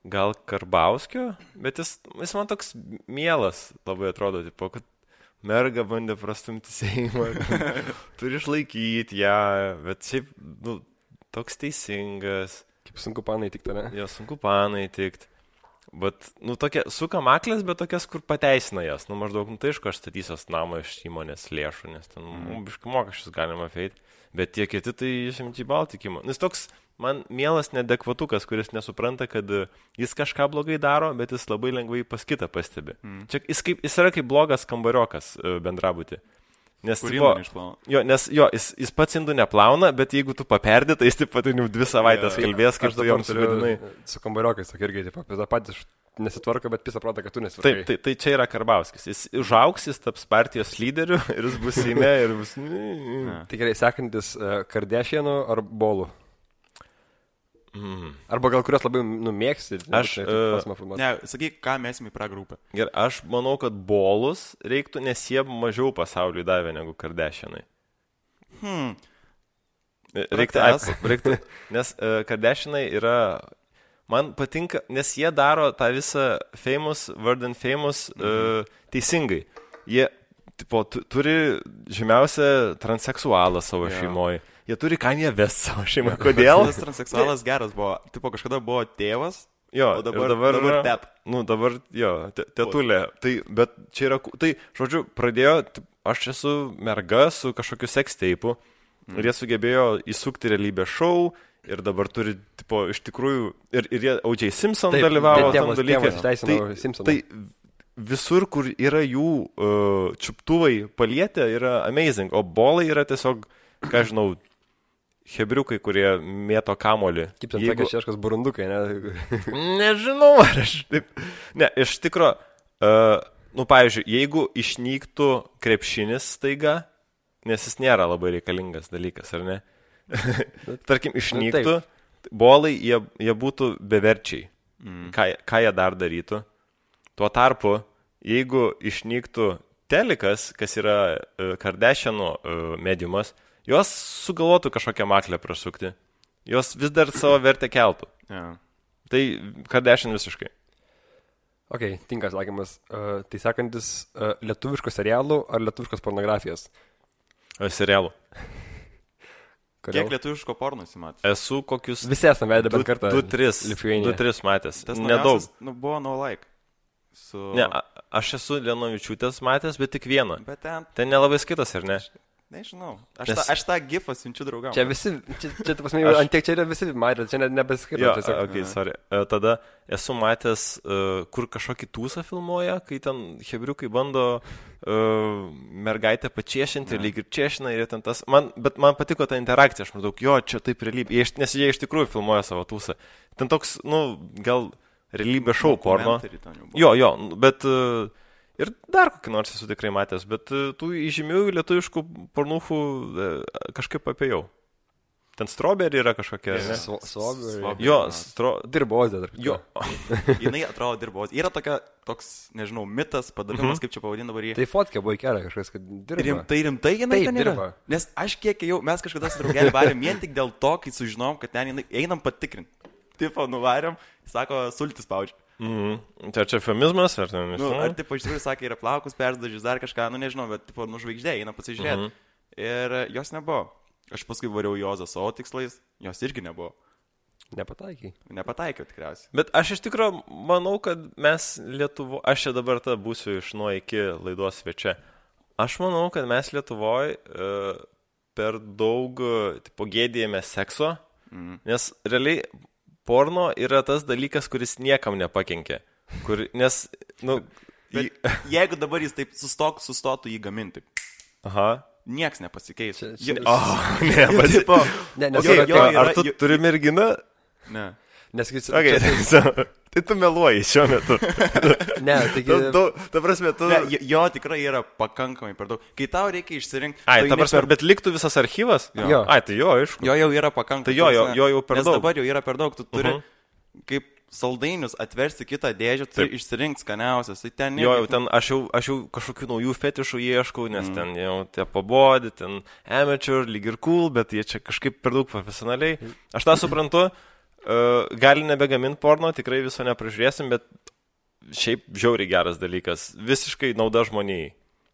gal Karbauskio, bet jis man toks mielas labai atrodo, tipo, kad merga bandė prastumti Seimą, turi išlaikyti ją, bet šiaip, toks teisingas. Kaip sunku panai tikti, ne? Jo, sunku panai tikti. Bet, tokia, suka maklės, bet tokias, kur pateisina jas. Maždaug, tai aišku, aš statysios namą iš įmonės lėšų, nes ten, biškai mokesčius galima feiti. Bet tie kiti, tai išimti baltikimo. Nes toks, man mielas nedekvatukas, kuris nesupranta, kad jis kažką blogai daro, bet jis labai lengvai pas kitą pastebi. Čia, jis yra kaip blogas kambariokas bendrabutį. Nes, jis pats indų neplauna, bet jeigu tu paperdė, tai jis taip pat jau 2 savaitės kalbės, kaip tu joms sugadinai. Su kambariokais, sakai, irgi, taip, patys nesitvarko, bet pisą protą, kad tu nesitvarkai. Taip, tai čia yra Karbauskis. Jis užaugs, jis taps partijos lyderiu ir jis bus Seime ir bus... Tai gerai, sekantis Kardashianų ar Bolų? Arba gal kurios labai mėgsti. Ne, sakyk, ką mesim į pragrupę. Gerai, aš manau, kad Bolus reiktų, nes jie mažiau pasauliui davė negu Kardashianai. Reiktų, nes Kardashianai yra... Man patinka, nes jie daro tą visą famous, word and famous teisingai. Jie turi žymiausią transseksualą savo šeimoje. Jie turi Kanye West savo šeimoje. Kodėl? Tas transseksualas geras buvo. Tipo, kažkada buvo tėvas, jo, o dabar tet. Dabar, jo, tetulė. Tai, bet čia yra, tai, žodžiu, pradėjo, aš esu merga su kažkokiu seksteipu ir jie sugebėjo įsukti realybės šou ir dabar turi, tipo, iš tikrųjų, ir jie O.J. Simpson dalyvavo tam dalykai. Tai visur, kur yra jų čiuptuvai palietę, yra amazing, o bolai yra tiesiog, ką žinau, hebriukai, kurie mėto kamolį. Kaip ten sakė šeškas burundukai, ne? Nežinau, ar aš taip... Ne, iš tikro, pavyzdžiui, jeigu išnyktų krepšinis staiga, nes jis nėra labai reikalingas dalykas, ar ne? tarkim, išnyktų, bolai, jie būtų beverčiai. Ką jie dar darytų? Tuo tarpu, jeigu išnyktų telikas, kas yra Kardashianų mediumas, jos sugalvotų kažkokią maklę prasukti. Jos vis dar savo vertę keltų. Yeah. Tai Kardashian visiškai. Ok, tinkas sakymas. Tai sakantis, lietuviškos serialų ar lietuviškos pornografijos? Serialų. Kiek lietuviško porno įsimatė? Esu kokius... Visi esame vedę bent kartą. 2-3 matęs. Tas nedaug. Buvo No Like. Ne, aš esu Lenovičiūtės matęs, bet tik vieną. Bet ten nelabai skaitas, ar ne? Nežinau. Aš tą gifą siunčiu draugams. Čia visi, čia pasme, antiek čia yra visi matę, čia nebeskaitau. Jo, ok, sorry. Tada esu matęs, kur kažkokį tūsą filmuoja, kai ten hebriukai bando mergaitę pačiešinti, lyg ir čiešina ir ten tas. Bet man patiko ta interakcija, aš maždaug, jo, čia taip realybė, nes jie iš tikrųjų filmuoja savo tūsą. Ten toks, gal realybė šou porno. Jo, bet... Ir dar kokį nors esu tikrai matęs, bet tų įžymių lietuviškų pornūchų kažkaip apėjau. Ten Strawberry yra kažkokia, ne? Strawberry. Jo, Dirbozė. Jo. Jinai atrodo dirbozė. Yra toks, nežinau, mitas, padavimas, kaip čia pavadina dabar jį. Tai fotkė buvo įkelę kažkas, kad dirba. Rimtai jinai ten yra? Dirba. Nes aš kiek jau, mes kažkada su draugelį varėm vien tik dėl to, kai sužinom, kad ten jinai, einam patikrinti. Tipo, nuvarėm, sako, sultis spaudžia. Tai čia eufemizmas, ar ten? Ar tipo, iš tikrųjų sakė, yra plaukus perdažys, dar kažką, nežinau, bet tipo, žvaigždė, eina pasižiūrėti. Ir jos nebuvo. Aš paskui variau Jozą savo tikslais, jos irgi nebuvo. Nepataikiau tikriausiai. Bet aš iš tikrųjų manau, kad mes Lietuvo, aš čia dabar būsiu iš nuo iki laidos svečia. Aš manau, kad mes Lietuvoje per daug tipo, gėdėjame sekso, nes realiai porno yra tas dalykas, kuris niekam nepakenkė. Nes, jeigu dabar jis taip sustotų jį gaminti, nieks nepasikeis. Ar tu turi merginą? Ne. Tai tu meluoji šiuo metu. Ne, taigi... Ta prasme, tu... Jo tikrai yra pakankamai per daug. Kai tau reikia išsirinkti... Ta prasme, bet liktų visas archyvas? Jo. Tai jo, aišku. Jo jau yra pakankamai. Tai jo jau per daug. Nes dabar jau yra per daug. Tu turi kaip saldainius atversti kitą dėžę, turi išsirinkti skaniausias. Tai ten... Jo, jau ten aš jau kažkokių naujų fetišų ieškau, nes ten jau tie pabodi, ten amateur, lyg ir cool, bet jie čia kažkaip per daug profesionaliai. Aš tą suprantu. Gali nebegaminti porno, tikrai viso nepražiūrėsim, bet šiaip žiauriai geras dalykas. Visiškai nauda žmonijai.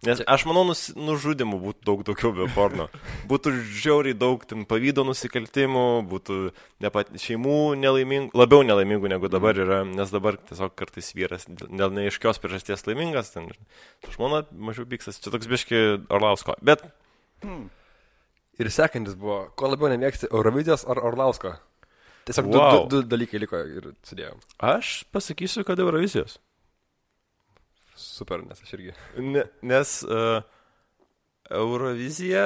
Nes aš manau, nužudimų būtų daug daugiau be porno. Būtų žiauriai daug pavydo nusikaltimų, būtų šeimų nelaimingų, labiau nelaimingų negu dabar yra, nes dabar tiesiog kartais vyras dėl neaiškios priežasties laimingas, ten žmona mažiau pyksas, čia toks biški Orlausko. Bet... Ir sekantis buvo, ko labiau nemėgsti, Eurovizijos ar Orlausko? Tiesiog du dalykai liko ir sudėjom. Aš pasakysiu, kad Eurovizijos. Super, nes aš irgi. Nes Eurovizija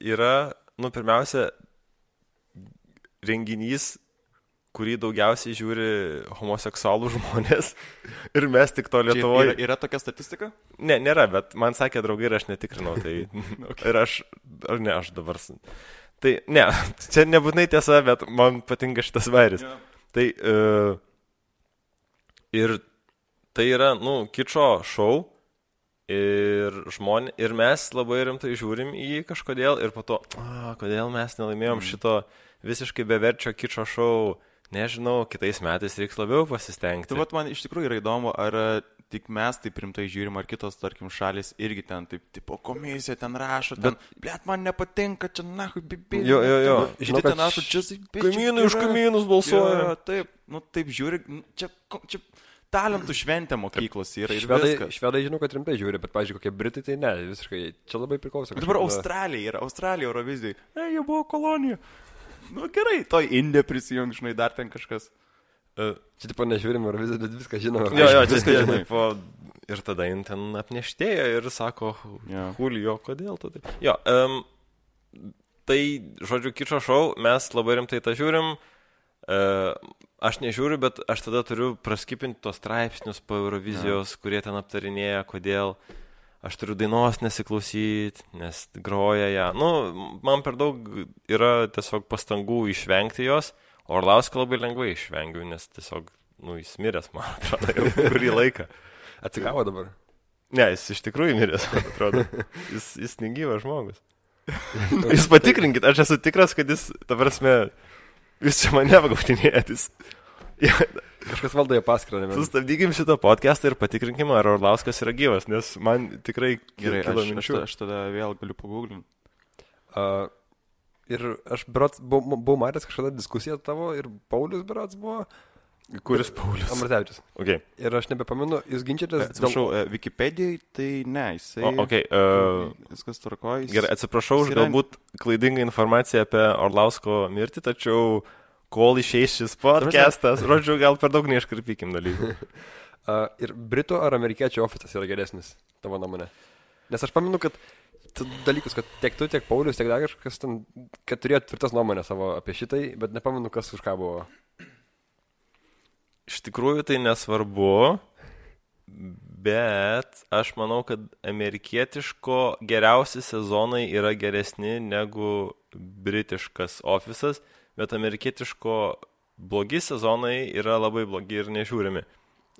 yra, pirmiausia, renginys, kurį daugiausiai žiūri homoseksualų žmonės ir mes tik to Lietuvoje. Yra tokia statistika? Ne, nėra, bet man sakė draugai ir aš netikrinau. Tai ir aš dabar... Tai ne, čia nebūtinai tiesa, bet man patinka šitas vairis. Yeah. Tai ir tai yra, kičo šou ir mes labai rimtai žiūrim į jį kažkodėl ir po to, kodėl mes nelaimėjom šito visiškai beverčio kičo šou, nežinau, kitais metais reiks labiau pasistengti. Tai man iš tikrųjų yra įdomu, ar tik mes taip rimtai žiūrim, ar kitos, tarkim, šalis irgi ten taip, tipo, komisija ten rašo, ten, blėt, man nepatinka, čia nahui, bibi. Jo. Žinai, ten rašo, čia... Kaimynai už kaimynus balsuoja. Taip, taip žiūri, čia talentų šventė mokyklos yra ir viskas. Švedai žinau, kad rimtai žiūri, bet, pavyzdžiui, kokie Britai, tai ne, visiškai, čia labai priklauso. Dabar Australija Eurovizijai, jie buvo kolonija. Gerai, toj Indija prisijung, žinai, dar ten kažkas. Čia tipo nežiūrim Euroviziją, bet viską žinome. Jo, viską žinai. Ir tada jin ten apneštėja ir sako, Julio, kodėl tu taip? Jo, tai, žodžiu, kičo šou, mes labai rimtai tą žiūrim. Aš nežiūriu, bet aš tada turiu praskipinti tos straipsnius po Eurovizijos, kurie ten aptarinėja, kodėl. aš turiu dainos nesiklausyti, nes groja ją. Nu, man per daug yra tiesiog pastangų išvengti jos, o Orlauską labai lengvai išvengiu, nes tiesiog, jis miręs, man atrodo, jau kurį laiką. Atsigavo dabar? Ne, jis iš tikrųjų miręs, man atrodo. Jis negyvas žmogus. Jūs patikrinkit, aš esu tikras, kad jis, ta prasme, jūs čia mane apgautinėjat. Kažkas valdo jo paskirą. Sustabdykim šitą podcastą ir patikrinkim, ar Orlauskas yra gyvas, nes man tikrai Gerai, kilo minčių. aš tada vėl galiu paguglinti. Ir aš berods buvau matęs kažkada diskusiją tavo ir Paulius berods buvo. Kuris Paulius? Ambrazevičius. Okay. Ir aš nebepamenu, jūs ginčiatės... Atsiprašau, Wikipedijai tai ne, jisai... Viskas tvarkoja. Gerai, atsiprašau už galbūt klaidingą informaciją apie Orlausko mirtį, tačiau kol išeis šis podcastas, žodžiu, gal per daug neiškarpykim dalykų. Ir Britų ar amerikiečių ofisas yra geresnis, tavo nuomonė? Nes aš pamenu, kad dalykus, kad tiek tu, tiek Paulius, tiek dar kažkas ten, kad turėjo tvirtas nuomonę savo apie šitai, bet nepamenu, kas už ką buvo. Iš tikrųjų tai nesvarbu, bet aš manau, kad amerikietiško geriausi sezonai yra geresni negu britiškas ofisas, bet amerikietiško blogi sezonai yra labai blogi ir nežiūrimi.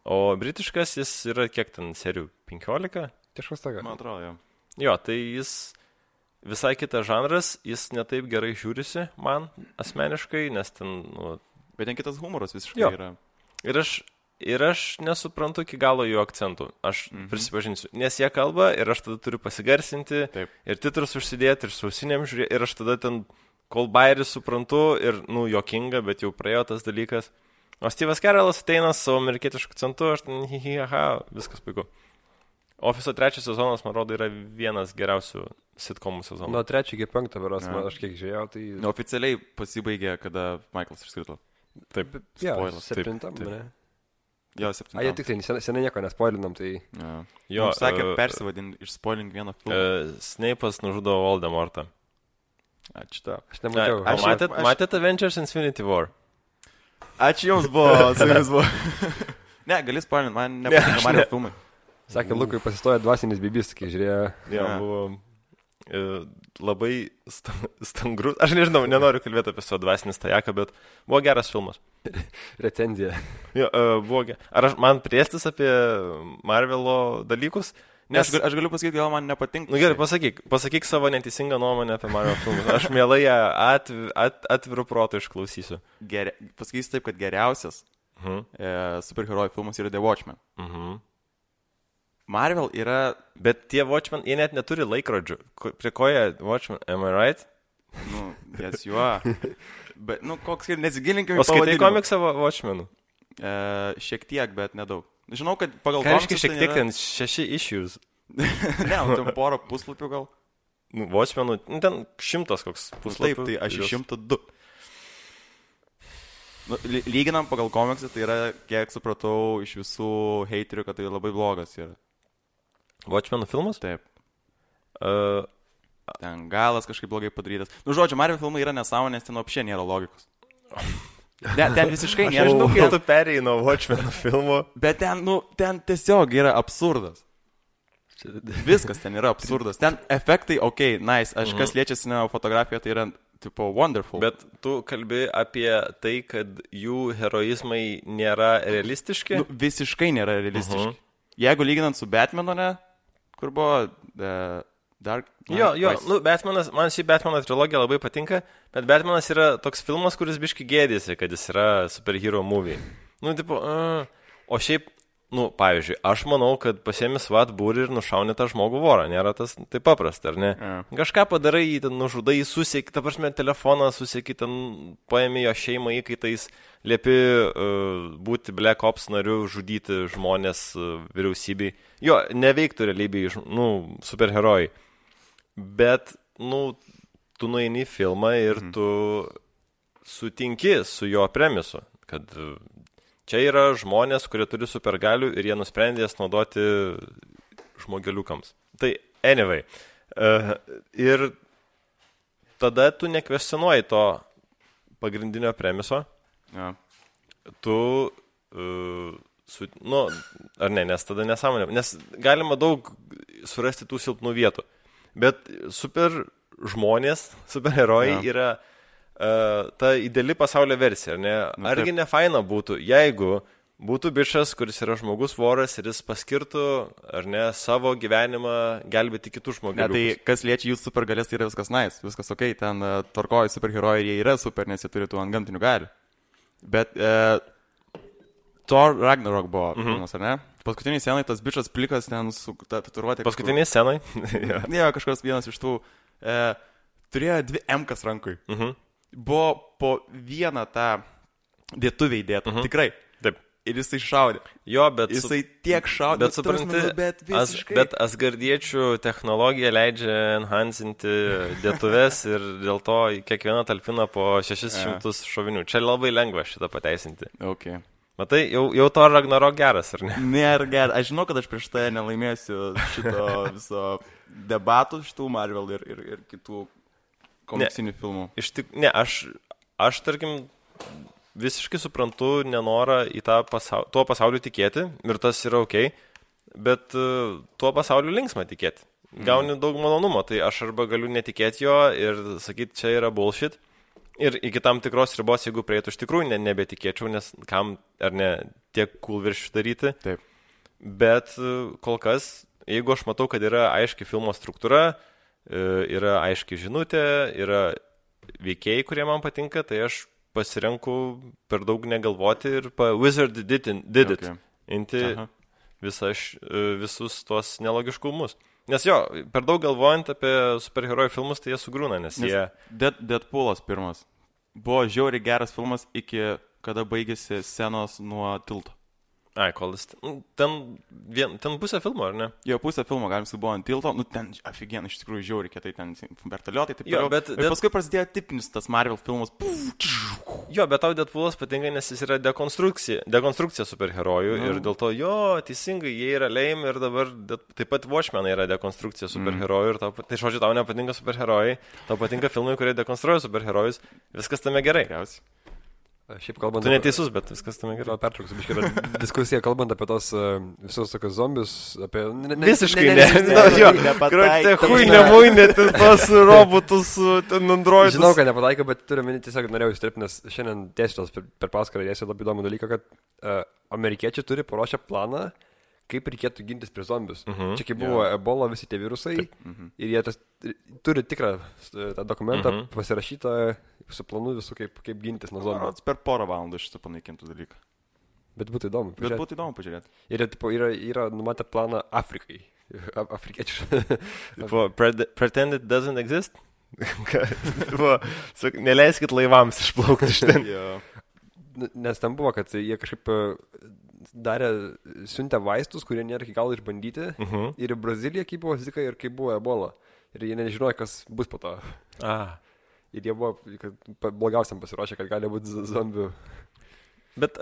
O britiškas jis yra kiek ten serijų? 15? Kažkas tokia. Man atrodo, jo. Jo, tai jis visai kitas žanras, jis netaip gerai žiūrisi man asmeniškai, nes ten... Bet ten kitas humoras visiškai yra. Ir aš nesuprantu iki galo jų akcentų. Aš prisipažinsiu, nes jie kalba ir aš tada turiu pasigarsinti. Taip. Ir titrus užsidėti ir sausinėm žiūrėti ir aš tada ten kol bairį suprantu ir, juokinga, bet jau praėjo tas dalykas. O Steve'as Carellas ateina savo amerikietišku akcentu, aš ten viskas puiku. Ofiso 3 sezonas, man rodo, yra vienas geriausių sitcomų sezonų. Nuo 3 iki 5 beros, aš kiek žiūrėjau, tai... Oficialiai pasibaigė, kada Michaelas išskrito. Taip, spoilas. 7, ne? Jo, 7. Jie tik tai seniai nieko nespoilinam, tai... Jo, sakė, persivadinti, išspoilink vieną filmą. Snape'as nužudo Voldemortą. Ačiū tau. Aš nemačiau. Matėte Avengers Infinity War? Ačiū jums buvo, su jumis buvo. Ne, gali spoilinti, man nepatinka Mario filmai. Sakė, Lukui pasistojo dvasinis bibis, kai žiūrėjo. Jo, buvo... labai stangrus. Aš nežinau, nenoriu kalbėti apie savo dvasinį stajaką, bet buvo geras filmas. Recenzija. Jo, buvo geras. Ar man priestis apie Marvelo dalykus? Nes aš galiu pasakyti, gal man nepatinka. Gerai, pasakyk savo neteisingą nuomonę apie Marvel filmus. Aš mielai ją atviru protu išklausysiu. Pasakysiu taip, kad geriausias superherojų filmas yra The Watchmen. Marvel yra... Bet tie Watchmen, jie net neturi laikrodžių. Prie ko jie Watchmen, am I right? Yes, you are. Bet, koks ir nesigilinkime į pavadinimą. O skaitai komiksą Watchmenų? Šiek tiek, bet nedaug. Žinau, kad pagal komiksą... Ką šiek tiek ten 6 issues? Ne, ten porą puslapių gal. Watchmenų, ten 100 koks puslapių. Taip, tai aš 102. Lyginam pagal komiksą, tai yra, kiek supratau, iš visų heiterių, kad tai labai blogas yra. Watchmenų filmas? Taip. Ten galas kažkaip blogai padarytas. Žodžiu, Marvel filmai yra nesąmonė, nes ten apšė nėra logikos. Ten visiškai nėra. Aš žinau, kai tu perėjai nuo Watchmenų filmo. Bet ten tiesiog yra absurdas. Viskas ten yra absurdas. Ten efektai, nice. Aš kas liečiasi ne fotografiją, tai yra tipo wonderful. Bet tu kalbi apie tai, kad jų heroizmai nėra realistiški? Visiškai nėra realistiški. Jeigu lyginant su Batmanu, ne? Kur buvo Dark Knight? Jo, Batmanas, man šį Batmano trilogija labai patinka, bet Batmanas yra toks filmas, kuris biški gėdėsi, kad jis yra superhero movie. O šiaip, pavyzdžiui, aš manau, kad pasiemi SWAT būrį ir nušauni tą žmogų vorą, nėra tas taip paprasta, ar ne? Kažką padarai, jį ten nužudai, susieki, ta prasme, telefoną susieki, ten paėmė jo šeimą įkaitais, liepi būti Black Ops nariu, žudyti žmonės vyriausybei. Jo, neveiktų realybėj, superherojai. Bet, tu nueini į filmą ir tu sutinki su jo premisu, kad čia yra žmonės, kurie turi supergalių ir jie nusprendė jas naudoti žmogeliukams. Tai, anyway. Ir tada tu nekvestionuoji to pagrindinio premiso. Ja. Tu, ar ne, nes tada nesąmonė. Nes galima daug surasti tų silpnų vietų. Bet super žmonės, superherojai yra ta ideali pasaulio versija, ar ne? Argi ne faina būtų, jeigu būtų bičas, kuris yra žmogus voras ir jis paskirtų, ar ne, savo gyvenimą gelbėti kitų žmonių. Ne, tai kas liečia jų supergalės, tai yra viskas nice, viskas ok, ten tvarkoja superherojai ir jie yra super, nes jie turi tų antgamtinių galių. Bet Thor Ragnarok buvo filmas, ar ne? Paskutiniai scenai tas bičas plikas ten su tatuiruotė. Paskutiniai scenai? Ne, kažkas vienas iš tų turėjo 2 M-kas rankui. Buvo po vieną tą dėtuvę įdėtą, tikrai. Taip. Ir jisai šaudė. Jo, bet... Jisai tiek šaudė, bet supranti, bet visiškai. Bet asgardiečių technologija leidžia enhancinti dėtuves ir dėl to kiekviena talpina po 600 šovinių. Čia labai lengva šitą pateisinti. Okay. Matai, jau to Ragnarok geras, ar ne? Nėra geras. Aš žinau, kad aš prieš tai nelaimėsiu šito viso debatų, šitų Marvel ir kitų komiksinių filmų. Aš tarkim, visiškai suprantu nenorą į tuo pasauliu tikėti ir tas yra ok, bet tuo pasauliu linksma tikėti. Gauni daug malonumo, tai aš arba galiu netikėti jo ir sakyti, čia yra bullshit. Ir iki tam tikros ribos, jeigu prieitų, iš tikrųjų nebetikėčiau, nes kam ar ne tiek cool virš daryti. Taip. Bet kol kas, jeigu aš matau, kad yra aiški filmo struktūra, yra aiški žinutė, yra veikėjai, kurie man patinka, tai aš pasirenku per daug negalvoti ir Wizard did it. Inti visus tuos nelogiškumus. Nes jo, per daug galvojant apie superherojų filmus, tai jie sugrūna, nes jie... Deadpoolas pirmas. Buvo žiauriai geras filmas iki kada baigėsi scenos nuo tilto. Ai, kol jis... Ten pusę filmo, ar ne? Jo, pusę filmo, galim su buvo ant tilto, ten aфиген, iš tikrųjų žiauriai kietai, ten vertaliotai, taip jo, bet paskui prasidėjo tipinis tas Marvel filmas. Jo, bet tau Deadpoolas patinka, nes jis yra dekonstrukcija superherojų ir dėl to, jo, teisingai, jie yra lame ir dabar taip pat Watchmenai yra dekonstrukcija superherojų ir tai žodžiu, tau nepatinka superherojai, tau patinka filmai, kurie dekonstruoja superherojus, viskas tame gerai. Šiaip kalbant... Tu neteisus, bet viskas tame gerai. Pertrauksiu, biškai yra diskusija, kalbant apie tos visus tokius zombius, apie... Visiškai ne. Hui, nemuinė, tos robotus, ten androidus. Žinau, kad nepataikė, bet turiu minį tiesiog norėjau įstripti, nes šiandien tiesiog per paskarą dėsiu labai įdomų dalyką, kad amerikiečiai turi paruošę planą, kaip reikėtų gintis prie zombius. Čia kaip buvo Ebola, visi tie virusai, ir jie turi tikrą tą dokumentą pasirašytą su planu visų, kaip gintis nuo zombių. Per porą valandų šitą panaikintų dalyką. Bet būtų įdomu pažiūrėti. Ir yra numatę planą Afrikai. Afrikiečių. Pretend it doesn't exist? Neleiskit laivams išplaukti iš ten. Nes ten buvo, kad jie kažkaip siuntė vaistus, kurie nėra iki galo išbandyti. Ir į Braziliją, kaip buvo Zika ir kaip buvo Ebola. Ir jie nežinojo, kas bus po to. Ir jie buvo blogiausiam pasiruošę, kad gali būti zombių. Bet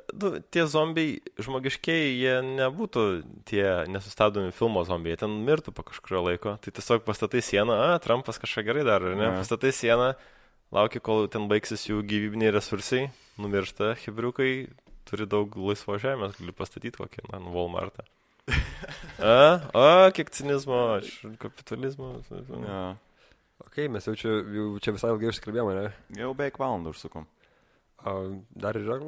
tie zombiai žmogiškiai, jie nebūtų tie nesustabdomi filmo zombiai, jie ten mirtų po kažkurio laiko. Tai tiesiog pastatai sieną, Trumpas kažką gerai daro, ar ne? Pastatai sieną, laukia, kol ten baigsis jų gyvybiniai resursai, numiršta, hebriukai, turi daug laisvo žemės, gali pastatyti kokį, Walmartą. Kiek cinizmo, kapitalizmo. Ok, mes jau čia visai ilgai užsikalbėjome, ne? Jau beveik valandą užsukom. Dar yra?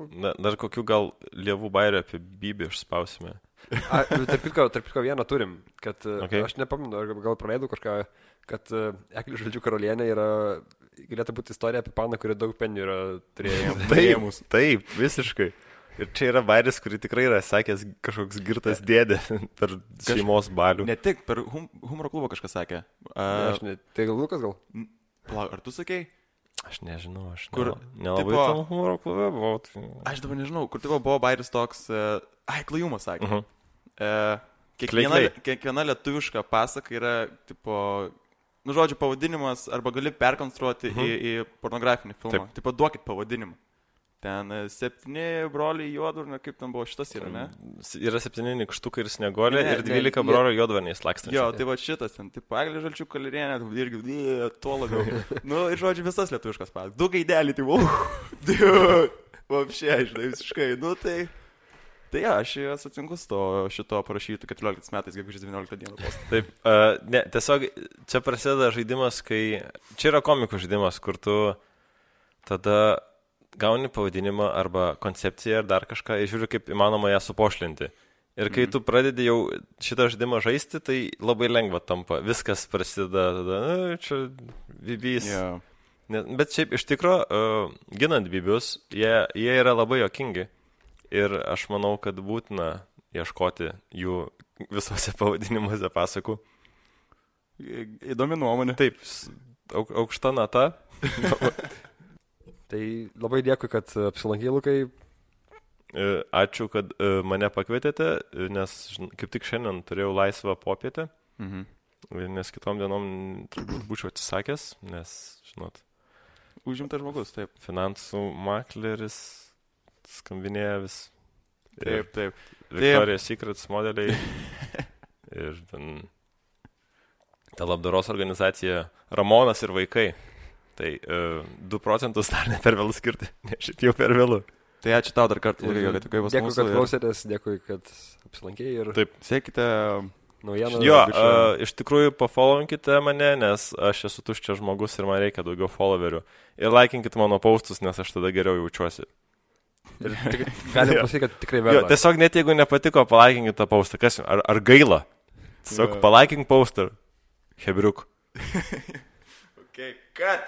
Dar kokių gal lievų bairių apie Bybį išspausime. Tarp kitko vieną turim, kad aš nepaminu, gal praleidau kažką, kad Eglių žodžių karalienė galėtų būti istorija apie paną, kuri daug penių yra turėjimus. Taip, visiškai. Ir čia yra bairis, kurį tikrai yra sakęs kažkoks girtas dėdė per šeimos balių. Ne tik, per humoro klubą kažkas sakė. Tai gal Lukas gal? Ar tu sakei? Aš nežinau, nelabai tam humoro klube buvau. Aš dabar nežinau, kur buvo bairis toks, Klajumas sakė. Kiekviena lietuviška pasaka yra, žodžiu, pavadinimas, arba gali perkonstruoti į pornografinį filmą. Duokit pavadinimą. Ten 7 broliai juodvarniai, kaip ten buvo šitas yra, ne? Yra 7 nykštukai ir snieguolė ir 12 brolių juodvarniai slakstančiai. Jo, tai va šitas ten, Eglė žalčių kalirienė, irgi tuo labiau. Ir žodžiu, visas lietuviškas pasas. 2 gaidelį, vapšė, žinai, visiškai, tai... Tai aš sutinku su šito parašytų 14 metais, gegužės 19 dieną postą. Taip, ne, tiesiog čia prasideda žaidimas, kai... Čia yra komikų žaidimas, kur tu tada gauni pavadinimą arba koncepciją ar dar kažką ir žiūri, kaip įmanoma ją supošlinti. Ir kai tu pradedi jau šitą žaidimą žaisti, tai labai lengva tampa. Viskas prasideda tada, čia bibys. Yeah. Bet šiaip iš tikro, ginant bibius, jie yra labai jokingi. Ir aš manau, kad būtina ieškoti jų visose pavadinimuose pasakų. Įdomi nuomonė. Taip, aukšta nata. Tai labai dėkui, kad apsilankei, Lukai. Ačiū, kad mane pakvietėte, nes kaip tik šiandien turėjau laisvą popietę. Nes kitom dienom turbūt būčiau atsisakęs, nes, žinot. Užimtas žmogus, taip. Finansų makleris. Skambinėja vis. Taip. Victoria's Secrets modeliai. Ir ten ta labdaros organizacija Ramonas ir vaikai. Tai 2% dar ne per vėlų skirti, ne šiaip jau per vėlų. Tai ačiū tau dar kartą, kad tu kaip pas mūsų. Dėkui, kad klausėtės, dėkui, kad apsilankėjai ir... Taip. Sekite naujieną. Jo, iš tikrųjų pafollowinkite mane, nes aš esu tuščias žmogus ir man reikia daugiau followerių. Ir laikinkite mano postus, nes aš tada geriau jaučiuosi. Ir galim pasakyti, kad tikrai verta. Tiesiog net jeigu nepatiko, palaikinkite tą postą. Kas, ar gaila? Tiesiog palaikink postą. Hebriuk. Okay, cut.